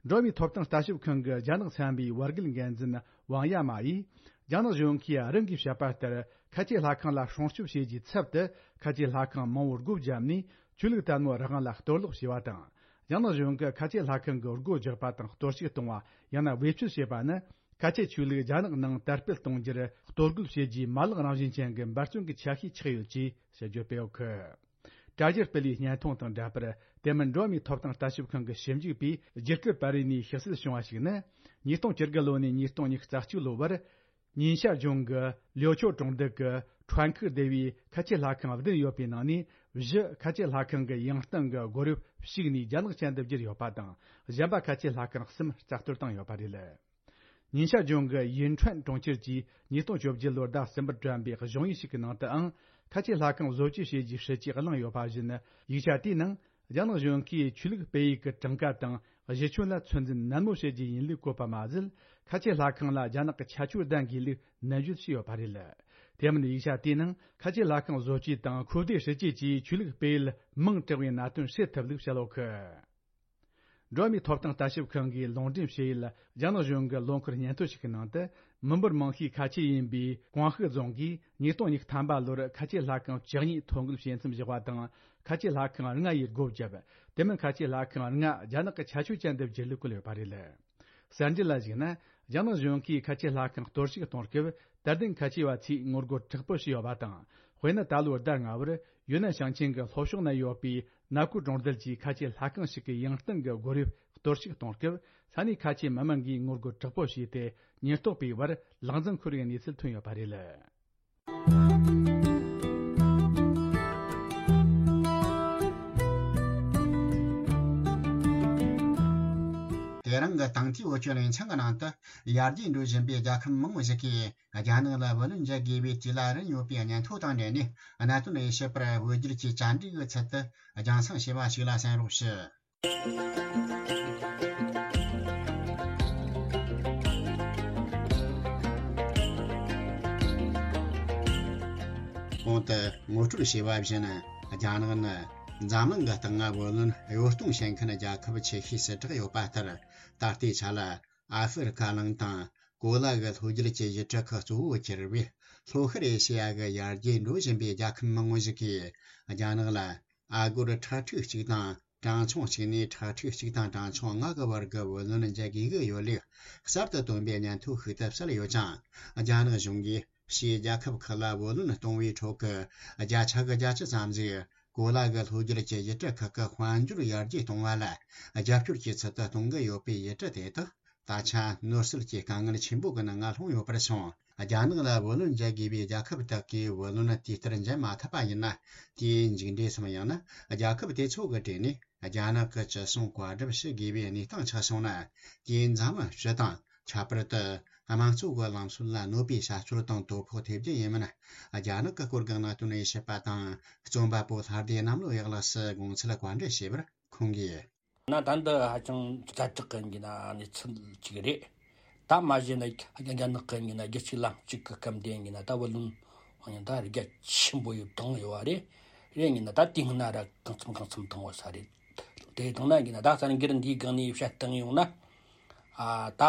འགྲོ་བའི་ཐོབ་ཐང་ལྟ་ཞིབ་ཁང་གི་རྒྱ་ནག་ཚན་པའི་བར་བརྒལ་འགན་འཛིན་ཝང་ཡ་མ་ཡིས། རྒྱ་ནག་གཞུང་གིས་རང་གིས་བཤད་པ་ལྟར་ཁ་ཆེ་ལྷ་ཁང་ལ་སྲུང་སྐྱོབ་བྱེད་རྒྱུའི་ཚབ་ཏུ་ཁ་ཆེ་ལྷ་ཁང་མང་བོར་སྒོ་བརྒྱབ་ནས་ཆོས་ལུགས་དད་མོས་རང་དབང་ལ་གཏོར་བརླག་བྱས་པ་དང་། རྒྱ་ནག་གཞུང་གིས་ཁ་ཆེ་ལྷ་ཁང་གི་སྒོ་རྒྱག་པ་དང་གཏོར་བཤིག་གཏོང་བ། ཡང་ན་བེད་སྤྱོད་བྱེད་པ་ནི། ཁ་ཆེ་ཆོས་ལུགས་རྒྱ་ནག་ནང་དར་སྤེལ་གཏོང་རྒྱུར་གཏོར་རྒོལ་བྱེད་རྒྱུའི་མ་ལག་རང་བཞིན་ཅན་གྱི་འབད་བརྩོན་གྱི་ཆ་ཤས་ཆགས་ཡོད་ཅེས་དཔྱད་བརྗོད་སྤེལ་ཡོད་གི། དྲ་རྒྱར་སྤེལ་བའི་བརྙན་ཐུང་དང་འདྲ་པར། དེ་མིན་འགྲོ་བ་མིའི་ཐོབ་ཐང་ལྟ་ཞིབ་ཁང་གི་ཞིབ་འཇུག་པས་རྒྱུ་སྐར་པ་རི་ནས་ཞིབ་གསལ་བྱུང་བ་ཞིག་ནི། ཉིས་སྟོང་བཅུ་དགུ་ལོ་ནས་ཉིས་སྟོང་ཉི་ཤུ་རྩ་གཅིག་ལོ་བར། ཉིན་ཤར་ལྗོངས་ཀྱི་ལིའོ་ཆོ་གྲོང་རྡལ་གྱི་ཁྲོན་ཁུག་སྡེ་བའི་ཁ་ཆེ་ལྷ་ཁང་བདུན་ཡོད་པའི་ནང་ནས། བཞི་ཁ་ཆེ་ལྷ་ཁང་གི་ཡང་སྟེང་གི་སྒོ་རུ་ཞུགས་ནས་རྒྱ་ནག་ཅན་དུ་བསྒྱུར་ཡོད་པ་དང་། གཞན་པ་ཁ་ཆེ་ལྷ་ཁང་གསུམ་རྩ་གཏོར་བཏང་ཡོད་པ་རེད། ཉིན་ཤར་ལྗོངས་ཀྱི་ཡིན་ཁྲོན་གྲོང་ཁྱེར་གྱིས་ཉིས་སྟོང་བཅོ་བརྒྱད་ལོར་ཟླ་གསུམ་པར་བཀྲམ་པའི་གཞུང་ཡིག་ཞིག་གི་ནང་དུའང་། ཁ་ཆེ་ལྷ་ཁང་བཟོ་བཅོས་བྱེད་རྒྱུའི་སྲིད་ཇུས་གླེང་ཡོད་པ་བཞིན། ཡིག་ཆ་དེའི་ནང་། རྒྱ་ནག་གཞུང་གིས་ཆོས་ལུགས་སྤེལ་ཡུལ་གྱི་གྲངས་ཀ་དང་གཞི་ཁྱོན་ལ་ཚོད་འཛིན་ནན་མོ་བྱེད་རྒྱུ་ཡིན་ལུགས་བཀོད་པ་མ་ཟད། ཁ་ཆེ་ལྷ་ཁང་ལ་རྒྱ་ནག་གི་ཁྱད་ཆོས་ལྡན་དགོས་ལུགས་ནན་བརྗོད་བྱས་ཡོད་པ་རེད། དེ་མིན་ཡིག་ཆ་དེའི་ནང་ཁ་ཆེ་ལྷ་ཁང་བཟོ་བཅོས་དང་ཁོ་བསྡུའི་སྲིད་ཇུས་ཀྱིས་ཆོས་ལུགས་སྤེལ་ཡུལ་མིང་དྲག་པའི་གནད་དོན་སེལ་ཐུབ་ལུགས་བཤད་ཡོད་གི། འགྲོ་བ་མིའི་ཐོབ་ཐང་ལྟ་ཞིབ་ཁང་གིས་ལུང་འདྲེན་བྱས་ཡུལ། རྒྱ་ནག་གཞུང་གི་ལོ་འཁོར་སྙན་ཐོ་ཞིག་གི་ནང་དུ། མི་འབོར་མང་ཤོས་ཁ་ཆེ་ཡིན་པའི་ཀོང་ཧི་རྫོང་གིས་ཉིས་སྟོང་ཉི་ཤུ་ཐམ་པ་ལོར་ཁ་ཆེ་ལྷ་ཁང་བཅུ་གཉིས་ཐོ་འགོད་བྱེད་མཚམས་བཞག་པ་དང་། ཁ་ཆེ་ལྷ་ཁང་ལྔ་ཡིས་སྒོ་བརྒྱབ། དེ་མིན་ཁ་ཆེ་ལྷ་ཁང་ལྔ་རྒྱ་ནག་གི་ཁྱད་ཆོས་ཅན་དུ་བསྒྱུར་ལུགས་བཀོད་ཡོད་པ་རེད། གསར་འགྱུར་ལ་གཞིགས་ན། རྒྱ་ནག་གཞུང་གིས་ཁ་ཆེ་ལྷ་ཁང་གཏོར་བཤིག་གཏོང་སྐབས། དད་ལྡན་ཁ་ཆེ་བ་ཚོས་ངོ་རྒོལ་དྲག་པོ་བྱས་ཡོད་པ་དང་། དཔེར་ན། ད་ལོའི་ཟླ་ལྔ་བར་ཡུན་ནན་ཞིང་ཆེན་གྱི་ལྷོ་ཕྱོགས་ན་ཡོད་པའི་ནཱ་ཀུའུ་གྲོང་རྡལ་གྱི་ཁ་ཆེ་ལྷ་ཁང་ཞིག་གི་ཡང་སྟེང་གི་སྒོ་དབྱིབས་གཏོར་བཤིག་གཏོང་སྐབས། ས་གནས་ཁ་ཆེའི་མི་མང་གིས་ངོ་རྒོལ་དྲག་པོ་བྱས་ཏེ། ཉེན་རྟོག་པའི་བར་ལག་འཛིང་ཤོར་བའི་གནས་ཚུལ་ཐོན་ཡོད་པ་རེད། དེ་རིང་གི་དང་ཐོག་བོད་ཀྱི་གླིང་ཚང་གི་ནང་དུ། ཡར་རྒྱས་འགྲོ་བཞིན་པའི་རྒྱལ་ཁབ་མང་བོ་ཞིག་གིས་རྒྱ་ནག་ལ་བུ་ལོན་འཇལ་དགོས་པའི་དུས་ལ་རན་ཡོད་པའི་སྙན་ཐོ་དང་འབྲེལ་ནས། གནད་དོན་དབྱེ་ཞིབ་པར་བོད་བསྒྱུར་གྱི་བཅར་འདྲི་གི་ཚུལ་དུ་རྒྱང་སྲིང་བྱས་པ་ཞིག་ལ་གསན་རོགས་ཞུ། གོང་དུ་ངོ་སྤྲོད་བྱས་པ་བཞིན། རྒྱ་ནག་ནི་འཛམ་གླིང་གི་སྟེང་ང་བུ་ལོན་གཡོ་གཏོང་བྱེད་མཁན་རྒྱལ་ཁབ་ཆེ་ཤོས་སུ་གྲགས་ཡོད་པ་ལྟར། ད་ལྟའི་ཆ་ལ་ཨ་ཧྥེ་རི་ཁ་གླིང་དང་གོ་ལ་གི་ལྷོ་རྒྱུད་ཀྱི་ཡུལ་གྲུ་ཁག་གཙོ་བོ་གྱུར་བའི་ལྷོ་ཤར་ཨེ་ཤེ་ཡ་གི་ཡར་རྒྱས་འགྲོ་བཞིན་པའི་རྒྱལ་ཁབ་མང་བོ་ཞིག་གིས་རྒྱ་ནག་ལ་ཨ་སྒོར་ཁྲི་ཕྲག་གཅིག་དང་གྲངས་ཆུང་གཅིག་ནས་ཁྲི་ཕྲག་གཅིག་དང་གྲངས་ཆུང་ལྔ་གི་བར་གྱི་བུ་ལོན་འཇལ་དགོས་ཀྱི་ཡོད་ལུགས་གསར་དུ་བཏོན་པའི་སྙན་ཐོ་ཞིག་ཏུ་གསལ་ཡོད་ཅིང་། རྒྱ་ནག་གཞུང་གིས་ཕྱིའི་རྒྱལ་ཁབ་ཁག་ལ་བུ་ལོན་གཏོང་བའི་ཁྲོད་ཀྱི་བརྒྱ་ཆ་གི་བརྒྱད་ཅུ་ཙམ་ཞིག་གོ་ལ་གི་ལྷོ་རྒྱུད་ཀྱི་ཡུལ་གྲུ་ཁག་གི་དཔལ་འབྱོར་ཡར་རྒྱས་གཏོང་བ་ལ་རྒྱབ་སྐྱོར་གྱི་ཚུལ་དུ་གཏོང་གི་ཡོད་པའི་ཡུལ་གྲུ་དེ་དག་ད་ཆ་ནོར་སྲིད་ཀྱི་དཀའ་ངལ་ཆེན་པོ་གི་ནང་ང་ལྷུང་ཡོད་པར་སོང་། རྒྱ་ནག་ལ་བུ་ལོན་འཇལ་དགོས་པའི་རྒྱལ་ཁབ་དག་གིས་བུ་ལོན་དུས་ལྟར་འཇལ་མ་ཐུབ་པ་ཡིན་ན། དེའི་མཇུག་འབྲས་སམ། ཡང་ན་རྒྱལ་ཁབ་དེ་ཚོ་གི་གྲས་ནས་རྒྱ་ནག་གི་ཅི་གསུང་བཀའ་སྒྲུབ་བྱེད་དགོས་པའི་གནས་སྟངས་ཆགས་སོང་ན། དེས་འཛམ་གླིང་སྤྱི་དང་། ཁྱད་པར་དུ་དམངས་གཙོ་གི་ལམ་སྲོལ་ལ་གནོད་པའི་བྱ་སྤྱོད་དང་དོ་ཕོག་ཐེབས་རྒྱུ་ཡིན་མིན། རྒྱ་ནག་གི་སྐོར་གྱི་གནད་དོན་དབྱེ་ཞིབ་པ་དང་རྩོམ་པ་པོ་ལྷ་སྡེ་གནམ་ལོ་ཡག་ལགས་སུ་དགོངས་ཚུལ་བཀའ་འདྲི་བྱས་པར་ཁོང་གིས། ན་ད་འདི་ཧ་ཅང་ཛ་དྲག་གི་ཡིན་ན་གནས་ཚུལ་ཅིག་རེད། ད་མ་གཞི་ན་རྒྱ་ནག་གི་ཡིན་ན་རྒྱལ་སྤྱིའི་ལམ་གཅིག་གི་སྐབས་འདི་ཡིན་ན་ད་བུ་ལོན་ཡང་ད་རྒྱ་ཆེན་པོ་ཡོད་བཏང་ཡོད་བ་རེད། རེད་ཡིན་ན་ད་དེ་སྔ་ན་ར་གང་འཚམ་གང་འཚམ་བཏང་བ་ས་རེད། དེ་བཏང་ན་ཡིན་ན་ད་གསར་འགྱུར་འདིའི་སྒང་ནས་བཤད་བཏང་ཡོང་ན། ཨ་ད་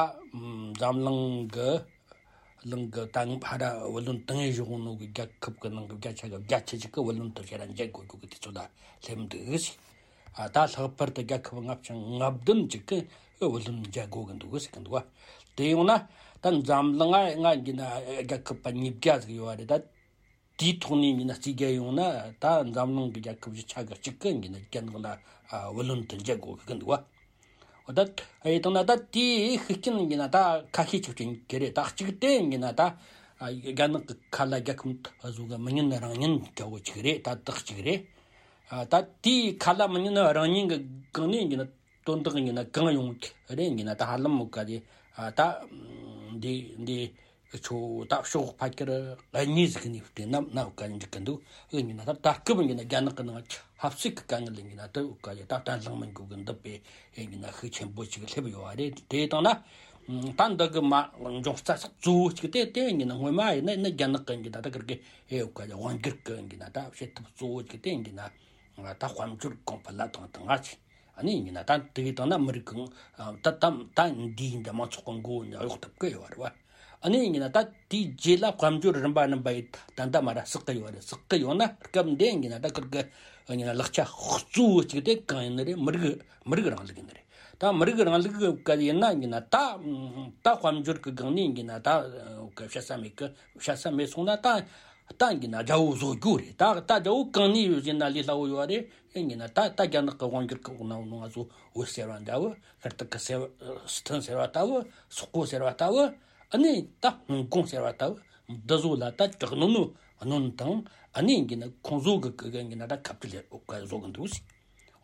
འཛམ་གླིང་གི་གླིང་གི་ད་ཕ་ར་བུ་ལོན་དང་ཡེ་བཞུགས་ནོ་གི་རྒྱལ་ཁབ་གི་ནང་གི་བརྒྱ་ཆ་གི་བརྒྱད་ཅུ་ཅིག་གི་བུ་ལོན་དུ་ཕྱིར་འཇལ་དགོས་རྒྱུ་གི་དུས་ཚོད་ལ་སླེབས་འདུག་ཟེར། ཨ་ད་ལྷག་པར་དུ་རྒྱལ་ཁབ་ལྔ་བཅུ་ང་བདུན་ཅིག་གི་བུ་ལོན་འཇལ་དགོས་གི་འདུག་ཟེར་གི་འདུག་བ། དེ་ཡོང་ན་ད་འཛམ་གླིང་ང་ང་ཡིན་ན་རྒྱལ་ཁབ་པ་ཉིས་བརྒྱ་ཟིག་ཡོད་བ་རེད་ད། དེའི་ཐོག་ནས་ཡིན་ན་རྩིས་རྒྱག་ཡོང་ན་ད་འཛམ་གླིང་གི་རྒྱལ་ཁབ་བཞི་ཆ་གི་གཅིག་གི་ཡིན་ན་རྒྱ་ནག་ལ་ཨ་བུ་ལོན་དུ་འཇལ་དགོས་གི་འདུག་བ། འོ་ད་ཨེ་དང་ན་ད་དེའི་ཤུགས་རྐྱེན་ཡིན་ན་ད་ཁ་ཤས་ཅིག་ཅིག་གི་རེད། ད་གཅིག་དེ་ཡིན་ན་ད་ཨ་རྒྱ་ནག་གི་ཁ་ལ་རྒྱལ་ཁབ་བཟོ་གི་མི་ཉན་རང་ཉན་འདྲ་བོ་ཅིག་རེད། ད་དག་ཅིག་རེད། ཨ་ད་དེའི་ཁ་ལ་མི་ཉན་རང་ཉན་གི་སྒང་ནས་ཡིན་ན་དོན་དག་ཡིན་ན་གང་ཡོང་རེད་ཡིན་ན་ད་ཧ་ལམ་མོ་ག་དེ་ཨ་ད་འདི་འདི། ཁྱོད་ད་ཕྱོགས་ཕ་ཁྱེར་གཉིས་ཟིག་ནས་བལྟས་ན་ན་བཀའ་འགྲིག་གི་འདུག་ཨེ་ཡིན་ན་ད་ད་སྐབས་ཡིན་ན་རྒྱ་ནག་གི་ནང་ཆབ་སྲིད་ཀྱི་དཀའ་ངལ་ཡིན་ན་ད་བཀའ་ཡ་ད་བརྟན་ལྷིང་མི་འགྱུར་གི་འདུག་པས་ཨེ་ཡིན་ན་ཤུགས་ཆེན་པོ་ཅིག་སླེབས་ཡོད་བ་རེད། དེ་དང་ན་ད་འདི་གི་མ་འབྱུང་རྩ་ས་གཙོ་བོ་ཅིག་དེ་དེ་ཡིན་ན་སྔོན་མ་ཡིན་ན་ཡིན་ན་རྒྱ་ནག་གི་ཡིན་ན་ད་གི་གི་ཨེ་བཀའ་ཡ་དབང་སྒྱུར་གི་ཡིན་ན་ད་བྱེད་ཐབས་གཙོ་བོ་ཅིག་དེ་ཡིན་ན་ད་དཔལ་འབྱོར་གོང་འཕེལ་ལ་དང་དང་ང་ཅིག་ཨ་ནི་ཡིན་ན་ད་དེ་གི་དང་ན་མི་རིགས་གང་ད་ད་ད་འདི་ཡིན་ད་མང་ཚོགས་གི་མགོ་ནས་གཡོག་ཐུབ་ཀི་ཡོད་རེད་བ། ཨ་ནི་ཡིན་ན་ད་དེའི་རྗེས་ལ་དཔལ་འབྱོར་རིམ་པ་རིམ་པ་ཡི་ད་ད་མ་ར་བསགས་ཀི་ཡོད་རེད། བསགས་ཀི་ཡོད་ན་སྐབས་འདི་ཡིན་ན་ད་ཁིར་གི་ཡིན་ན་ལག་ཆ་གཙོ་བོ་གཅིག་དེ་གང་ཡིན་ནི་རེད། མི་རིགས་མི་རིགས་རིང་ལུགས་ཡིན་ནི་རེད། ད་མི་རིགས་རིང་ལུགས་གི་ཡིན་ན་ཡིན་ན་ད་ད་དཔལ་འབྱོར་གི་སྒང་ནས་ཡིན་ན་ད་བཤད་ས་མེད་གི། བཤད་ས་མེད་སོང་ན་ད་ད་ཡིན་ན་རྒྱལ་པོ་བཟོ་རྒྱུ་རེད། ད་ད་རྒྱལ་པོ་གང་ནས་ཡོད་ཟེར་ན་ལས་སླ་བོ་ཡོད་རེད། ཡིན་ན་ད་ད་རྒྱ་ནག་གི་དབང་སྒྱུར་གི་འོག་ན་ཡོད་ནོ་ང་ཚོ་བོད་ཟེར་བ་འདྲ་བོ། ཤར་ཏུར་ཀི་ཟེར་བ། སི་ཐན་ཟེར་བ་ལྟ་བུ། སོག་པོ་ཟེར་བ་ལྟ་བུ། ཨ་ནི་ད་ཧོང་ཀོང་ཟེར་བ་ལྟ་བུ། འདི་ཚོ་ལ་ད་དྲག་གནོན་ནོ་གནོན་དང་། ཨ་ནི་ཡིན་ན་ཁོང་ཚོ་གི་གི་ཡིན་ན་ད་ཁ་བྲལ་ལས་འོག་ག་བཟོ་གི་འདུག་ཟེར།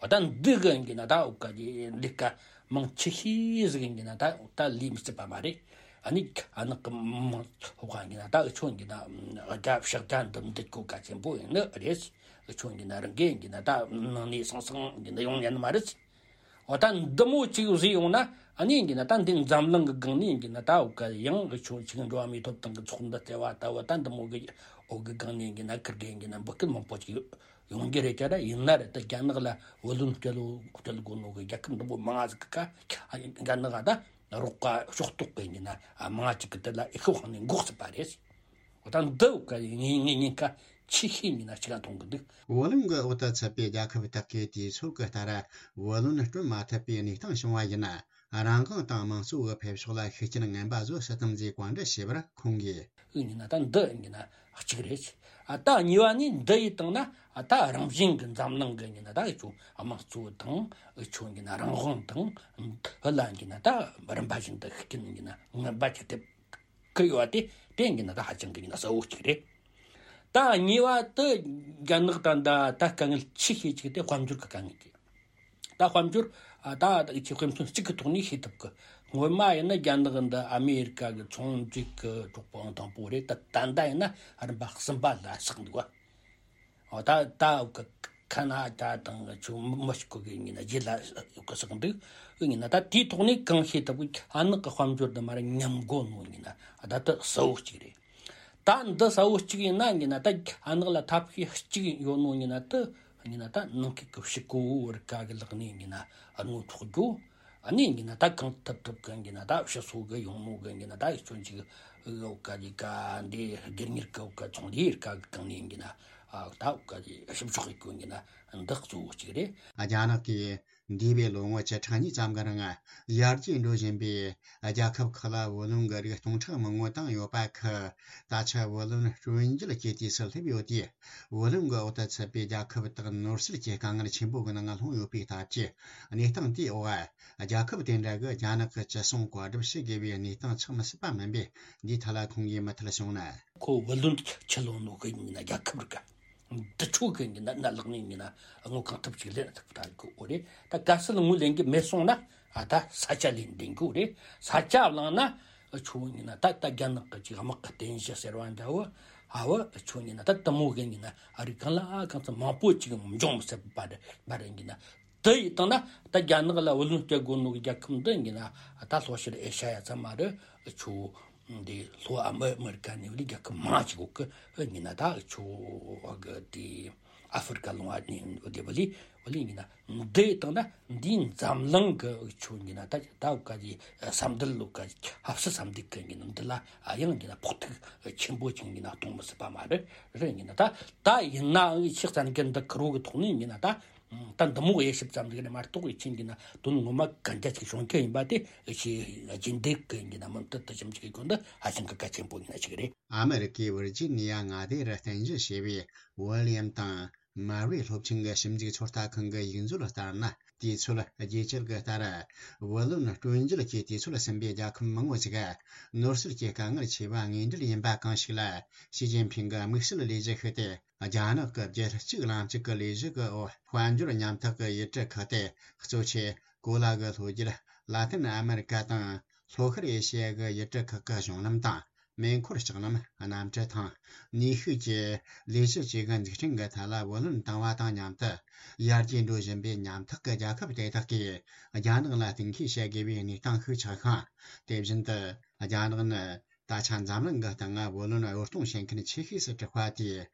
འོ་ད་འདི་གི་ཡིན་ན་ད་འོག་ག་གི་ལས་ཀ་མང་ཆེ་ཤོས་ཟིག་ཡིན་ན་ད་ད་ལས་མི་སྲིད་པ་མ་རེད། ཨ་ནི་ཨ་ནག་གི་མང་ཚོགས་ཡིན་ན་ད་འུ་ཆོ་ཡིན་ན་རྒྱ་ཕྱག་རྒྱ་འདི་འདི་གོ་ག་ཆེན་པོ་ཡིན་ནི་རེད། འུ་ཆོ་ཡིན་ན་རང་གི་ཡིན་ན་ད་ནང་ནས་སང་སང་ཡིན་ན་ཡོང་ཉན་མ་རེད། འོ་ད་འདི་མོ་གཅིག་བཟོས་ཡོང་ན་ཨ་ནི་ཡིན་ན་ད་འདི་འཛམ་གླིང་གི་སྒང་ནས་ཡིན་ན་ད་འོ་ག་ཡང་འུ་ཆོ་ཆིག་འགྲོ་བ་མིའི་ཐོབ་ཐང་གི་ཚོགས་འདུ་ཟེར་བ་ལྟ་བུ། ད་འདི་མོ་གི་འོ་གི་སྒང་ནས་ཡིན་ན་ཁིར་གི་ཡིན་ན་འབུད་སྐུལ་མང་པོ་ཅིག་ཡོང་གི་རེད་ཀྱ་ར། ཡིན་ན་རེད་ད་རྒྱ་ནག་ལ་བུ་ལོན་སྤྲད་ལོ་སྤྲད་དགོས་ནོ་གི་རྒྱལ་ཁབ་འདི་མོ་མང་ང་ཟིག་གི་ཁ་རྒྱ་ནག་ད་རོགས་པ་ཕྱོགས་གཏོགས་གི་ཡིན་ན་མང་ང་ཅིག་གི་དེ་ལ་ཨེ་ཤོ་ཧང་ནས་འགོག་སྲིད་པ་རེད། འོ་ད་འདི་འོ་ག་ངས་ངས་ཉེན་ཁ་ཆེ་ཤོས་ཡིན་ན་ཆི་ག་མཐོང་གི་འདུག་བུ་ལོན་གྱི་འོག་ཏུ་ཚུད་པའི་རྒྱལ་ཁབ་དག་གིས་དུས་ཚོད་ཀྱི་ལྟར་བུ་ལོན་སྤྲོད་མ་ཐུབ་པའི་གནས་སྟངས་བྱུང་བ་ཡིན་ན། རང་དབང་དང་དམངས་གཙོ་གི་འཕེལ་ཕྱོགས་ལ་ཤུགས་རྐྱེན་ངན་པ་བཟོ་སྲིད་དམ་ཟེར་བཀའ་འདྲི་བྱས་པར་ཁོང་གིས། ཨུ་ཡིན་ན་ད་འདི་ཡིན་ན་གཅིག་རེད། ཨ་ད་གཉིས་པ་ནི་འདི་ཡིས་བཏང་ན་ཨ་ད་རང་བཞིན་གྱི་འཛམ་གླིང་གི་ཡིན་ན་ད་ཨུ་ཆོ་དམངས་གཙོ་དང་ཨུ་ཆོ་ཡིན་ན་རང་དབང་དང་ཨུ་ལ་ཡིན་ན་ད་རིམ་པ་བཞིན་དུ་ཤུགས་རྐྱེན་ཡིན་ན་ངན་པ་ཅིག་ཐེབས་གི་ཡོད་པ་དེ་དེ་ཡིན་ན་ད་ཧ་ཅང་གི་ཡིན་ན་གསལ་བོ་གཅིག་རེད། ད་གཉིས་པ་དེ་རྒྱ་ནག་ད་ད་ད་དཀའ་ངལ་ཆེ་ཤོས་གཅིག་དེ་དཔལ་འབྱོར་གི་དཀའ་ངལ་གྱི། ད་དཔལ་འབྱོར་ཨ་ད་ད་ཅིག་དཔེ་མཚོན་གཅིག་གི་ཐོག་ནས་ཤེས་ཐུབ་གི། སྔོན་མ་ཡིན་ན་རྒྱ་ནག་འདི་ཨ་མེ་རི་ཀ་གི་ཚོང་འབྲེལ་གི་གྲོགས་པོ་དང་པོ་རེད། ད་ད་ལྟ་ཡིན་ན་རིམ་པ་གསུམ་པ་ལ་ཆགས་འདུག་བ། ཨོ་ད་ད་གི་ཁ་ན་ཌ་དང་ཆུ་མི་ཤི་ཀོ་གི་ཡིན་ན་རྗེས་ལ་གི་ཆགས་འདུག་ཡིན་ན་ད་དེའི་ཐོག་ནས་གང་ཤེས་ཐུབ་གི། ཨ་ནག་གི་དཔལ་འབྱོར་འདི་མ་རེད་ཉམས་དགོས་ནོ་ཡིན་ན་ད་ད་གསལ་བོ་གཅིག་རེད། ད་འདི་གསལ་བོ་གཅིག་ཡིན་ན་ཡིན་ན་ད་ཨ་ནག་ལ་ཐབས་ཤེས་གཅིག་ཡོད་ནོ་ཡིན་ན་ད་ཡིན་ན་ད་ནང་ཁུལ་གྱི་ཕྱི་གོ་བོ་རི་ཀ་གི་ལག་ནས་ཡིན་ན་རྔོ་ཐོག་རྒྱུ། ཨ་ནི་ཡིན་ན་ད་གང་ཐུབ་ཐུབ་གི་ཡིན་ན་ད་ཕྱི་སོ་གི་ཡོང་ནོ་གི་ཡིན་ན་ད་ཡིན་ན་ཅིག་འོ་ག་ལི་ཀ་འདི་སྒེར་གཉེར་གི་འོ་ག་ཚོང་ལས་རི་ཀ་གི་གང་ནས་ཡིན་ན་ཨ་ད་འོ་ག་ལི་ཞིབ་འཇུག་གི་ཡིན་ན་འདི་གཙོ་བོ་གཅིག་རེད། རྒྱ་ནག་གིས་འདས་པའི་ལོ་ངོ་བཅུ་ཕྲག་གཉིས་ཙམ་གྱི་རིང་ཡར་རྒྱས་འགྲོ་བཞིན་པའི་རྒྱལ་ཁབ་ཁག་ལ་བུ་ལོན་གྱི་རིགས་སྟོང་ཕྲག་མང་པོ་བཏང་ཡོད་པ་ཁག་ད་ཆ་བུ་ལོན་སྤྲོད་འཇལ་གྱི་དུས་སུ་སླེབས་ཡོད་དུས། བུ་ལོན་གྱི་འོག་ཏུ་ཚུད་པའི་རྒྱལ་ཁབ་དག་ནོར་སྲིད་ཀྱི་དཀའ་ངལ་ཆེན་པོ་གི་ནང་ལྷུང་ཡོད་པའི་སྟབས་ཀྱིས། གནས་སྟངས་དེའི་འོག་རྒྱལ་ཁབ་དེ་འདྲ་གི་རྒྱ་ནག་གི་ཅི་གསུང་བཀའ་སྒྲུབ་བྱེད་དགོས་པའི་གནས་སྟངས་ཆགས་མི་སྲིད་པ་མིན་པས། འདིའི་ཐད་ལ་ཁོང་གིས་མུ་མཐུད་གསུངས་ན། ཁོ་བུ་ལོན་ཆི་ལོན་ནོ་གི་ཡིན་ན་རྒྱལ་ཁབ་རིགས་འདི་ཆོ་གི་ཡིན་ན་ན་ལག་ནས་ཡིན་ན་དངུལ་གང་ཐུབ་ཅིག་ལེན་ཐུབ་ད་གི་འོ་རེད། ད་གལ་སྲིད་དངུལ་ལེན་གི་མེད་སོང་ན་ཨ་ད་ས་ཆ་ལེན་ལྡན་གི་འོ་རེད། ས་ཆ་བླངས་ན་ཆོ་ཡིན་ན་ད་ད་རྒྱ་ནག་གི་ཅིག་དམག་གི་རྟེན་གཞི་ཟེར་བ་འདྲ་བོ་ཨ་བོ་ཆོ་ཡིན་ན་ད་དེ་མོ་གི་ཡིན་ན་ཨ་རི་གང་ལ་ཨ་གང་ཚ་མང་པོ་ཅིག་འབྱུང་མི་སྲིད་པ་རེད་པ་རེད་ཡིན་ན། དེ་ཡིས་བཏང་ན་ད་རྒྱ་ནག་ལ་བུ་ལོན་སྤྲད་དགོས་ནོ་གི་རྒྱལ་ཁབ་འདི་ཡིན་ན་ད་ལྷོ་ཤར་ཨེ་ཤ་ཡ་ཙམ་མ་རེད། ཆོ་འདི་ལྷོ་ཨ་མི་ཨ་མི་རི་ཀ་ནས་བླི་རྒྱལ་ཁབ་མང་ཅིག་གོ་གི་ཡིན་ན་ད་ཆོ་གི་དེ་ཨ་ཧྥེ་རི་ཀ་ལུང་བ་ནས་བླི་བླི་བླི་ཡིན་ན་འདི་ཡིས་བཏང་ན་འདིའི་འཛམ་གླིང་གི་ཆོ་ཡིན་ན་ད་ད་ག་གི་ས་འདུལ་ལུག་ག་ཧབ་སི་ས་འདུལ་གི་ཡིན་ན་འདི་ལ་ཨ་ཡང་ཡིན་ན་ཕོག་ཐུག་ཆེན་པོ་ཅིག་ཡིན་ན་གཏོང་མི་སྲིད་པ་མ་རེད། རེད་ཡིན་ན་ད་ད་ཡིན་ནའང་ཕྱི་བཙན་གི་འདི་ཁུར་བོ་གི་ཐོག་ནས་ཡིན་ན་ད། ད་འདི་མོ་དབྱེ་ཞིབ་ཙམ་ཟིག་རེད་མ་གཏོགས་ཡིན་ན་དོན་ངོ་མ་གན་རྒྱ་ཅིག་བྱུང་གི་ཡིན་པ་དེ་ཞེས་རྒྱུན་ལྡན་གི་ཡིན་ན་མུ་མཐུད་དུ་ཞིབ་འཇུག་གི་སྐོར་འདི་ཧ་ཅང་གི་གལ་ཆེན་པོ་ཡིན་ན་ཞིག་རེད། ཨ་མེ་རི་ཀའི་ཝིར་ཇི་ནི་ཡ་མངའ་སྡེ་རུ་རྟེན་གཞི་བྱས་པའི་ཝི་ལི་ཡམ་དང་མར་ཝེ་སློབ་ཆེན་གྱི་ཞིབ་འཇུག་ཚོད་ལྟ་ཁང་གི་ཡིག་མཛོད་ལ་ལྟར་ན། དུས་ཚོད་རྒྱས་བསྐྱེད་ཀྱི་ལྟར། བུ་ལོན་སྤྲོད་འཇལ་གྱི་དུས་ཚོད་ཟིན་པའི་རྒྱལ་ཁབ་མང་པོ་ཞིག་ནོར་སྲིད་ཀྱི་དཀའ་ངལ་ཆེ་བ་དངོས་འབྲེལ་ཡིན་པ་གང་ཞིག་ལ། ཞི་ཅིན་ཕིང་གི་དམིགས་བསལ་ལས་གཞི་ཤིག་སྟེ། རྒྱ་ནག་གི་རྒྱལ་གཅེས་ལམ་གཅིག་གི་ལས་གཞི་གི་འོག་དཔལ་འབྱོར་ཉམ་ཐག་གི་ཡུལ་གྲུ་ཁག་སྟེ། གཙོ་ཆེ་གོ་ལ་གི་ལྷོ་རྒྱུད། ལ་ཏིན་ཨ་མེ་རི་ཀ་དང་ལྷོ་ཤར་ཨེ་ཤེ་ཡ་གི་ཡུལ་གྲུ་ཁག་གི་གཞུང་ལམ་དང་། མེ་འཁོར་ལྕགས་ལམ། གནམ་གྲུ་དང་། ནུས་ཤུགས་ཀྱི་ལས་གཞི་བཅས་ཀྱི་འཛུགས་སྐྲུན་གྱི་ཐད་ལ་བུ་ལོན་བཏང་བ་དང་མཉམ་དུ། ཡར་རྒྱས་འགྲོ་བཞིན་པའི་ཉམ་ཐག་གི་རྒྱལ་ཁབ་དེ་དག་གིས་རྒྱ་ནག་ལ་གཏན་འཁེལ་བྱ་དགོས་པའི་གནས་སྟངས་ཤིག་ཆགས་ཤིང་། དེ་བཞིན་དུ། རྒྱ་ནག་ནི། ད་ཆ་འཛམ་གླིང་གི་སྟེང་ང་བུ་ལོན་གཡོར་གཏོང་བྱེད་མཁན་ཆེ་ཤོས་སུ་གྲུབ་པ་དེས།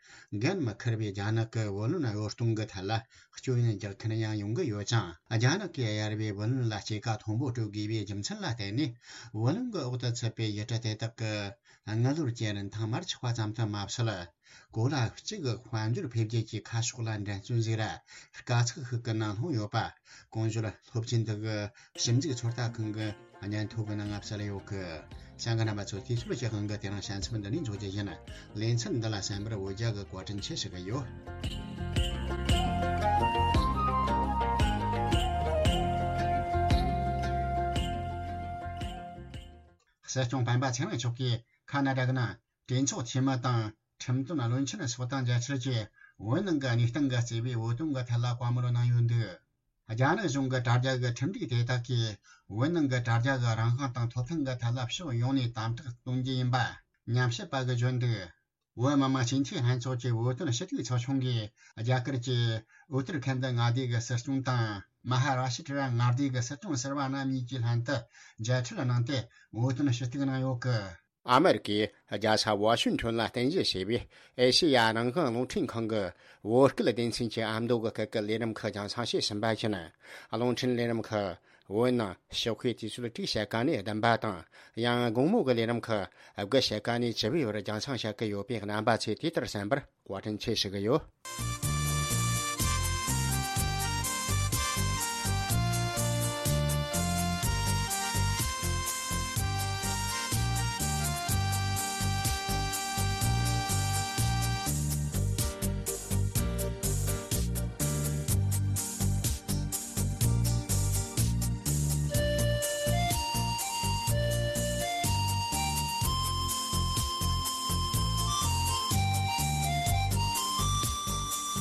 འགན་མི་འཁུར་བའི་རྒྱ་ནག་གི་བུ་ལོན་གཡོར་གཏོང་གི་ཐད་ལ་སྐྱོན་ཡོན་རྒྱག་མཁན་ཡང་ཡོང་གི་ཡོད་ཅིང་། རྒྱ་ནག་གིས་གཡར་བའི་བུ་ལོན་ལ་སྐྱེད་ཀ་མཐོན་པོ་སྤྲོད་དགོས་པའི་རྒྱུ་མཚན་ལ་བརྟེན་ནས། བུ་ལོན་གྱི་འོག་ཏུ་ཚུད་པའི་ཡུལ་གྲུ་དེ་དག་གི་དངུལ་ལོར་གྱི་རིན་ཐང་མར་ཆག་པ་ཙམ་དུ་མ་ཟད། གོ་ལ་གཅིག་གི་དཔལ་འབྱོར་འཕེལ་རྒྱས་ཀྱི་ཁ་ཕྱོགས་ལ་འགྲན་རྩོད་ཟིག་ར་དཀའ་ཚེགས་ཤིག་གི་ནང་ལྷུང་ཡོད་པ། གོང་བརྗོད་སློབ་ཆེན་དག་གི་ཞིབ་འཇུག་ཚོད་ལྟ་ཁང་གི་སྙན་ཐོ་གི་ནང་ང་གསལ་ཡོད་གི། བྱང་གི་རྣམ་པ་ཚོ། དུས་ཚོད་ཀྱི་དབང་གིས་དེ་རིང་བྱང་ཚབ་འདི་ནས་འཇོག་རྒྱུ་ཡིན། ལེ་ཚན་འདི་ལ་གསན་པར་འོ་ཇ་གི་བཀའ་དྲིན་ཆེ་ཞུ་གི་ཡོད། སྲིད་སྐྱོང་སྤེན་པ་ཚེ་རིང་མཆོག་གིས་ཁ་ན་ཌ་གི་ནང་གྲོས་ཚོགས་འཐུས་མི་དང་ཁྲིམས་དོན་བློན་ཆེན་སོགས་དང་མཇལ་འཕྲད་ཀྱིས་བོད་ནང་གི་གནས་སྟངས་ཀྱི་གཙོས་པའི་བོད་དོན་གྱི་ཐད་ལ་བཀའ་མོལ་གནང་ཡོད་འདུག། རྒྱ་ནག་གཞུང་གི་དྲ་རྒྱ་གི་ཁྲིམས་སྒྲིག་དེ་དག་གིས་བོད་ནང་གི་དྲ་རྒྱ་གི་རང་དབང་དང་ཐོབ་ཐང་གི་ཐད་ལ་ཕྱོགས་ཡོངས་ནས་དམ་དྲག་གཏོང་རྒྱུ་ཡིན་པ་ཉམས་ཞིབ་པ་གིས་བརྗོད་འདུག། བོད་མི་མང་སྤྱི་འཐུས་ལྷན་ཚོགས་ཀྱི་བོད་དོན་ཞུ་གཏུག་ཚོགས་ཆུང་གིས་རྒྱ་གར་གྱི་ཨུ་ཏར་ཁན་ད་མངའ་སྡེ་གི་སྲིད་སྐྱོང་དང་མ་ཧ་ར་ཤི་ཏྲ་མངའ་སྡེ་གི་སྲིད་སྐྱོང་ཟུར་པ་རྣམ་གཉིས་ཀྱིས་ལྷན་དུ་མཇལ་འཕྲད་གནང་སྟེ་བོད་དོན་ཞུ་གཏུག་གནང་ཡོད་གི། ཨ་མེ་རི་ཀའི་རྒྱལ་ས་ཝ་ཤིང་ཊོན་ལ་རྟེན་གཞི་བྱས་པའི་ཨེ་ཤེ་ཡ་རང་དབང་རླུང་འཕྲིན་ཁང་གི་བོད་སྐད་སྡེ་ཚན་གྱི་ཨ་མདོ་གི་སྐད་ཀྱི་ལས་རིམ་ཁག་རྒྱང་སྲིང་བྱས་ཟིན་པ་བཞིན། རླུང་འཕྲིན་ལས་རིམ་ཁག་བོད་ནང་ཞོགས་ཀའི་དུས་ཚོད་དྲུག་ཕྱེད་ཀ་ནས་བདུན་པ་དང་། ཡང་དགོང་མོ་གི་ལས་རིམ་ཁག་དགུ་ཕྱེད་ཀ་ནས་བཅུ་པའི་བར་རྒྱང་སྲིང་བྱེད་ཀྱི་ཡོད་པས། རྣམ་པ་ཚོས་དེ་ལྟར་གསན་པར་བཀའ་དྲིན་ཆེ་ཞུ་གི་ཡོད།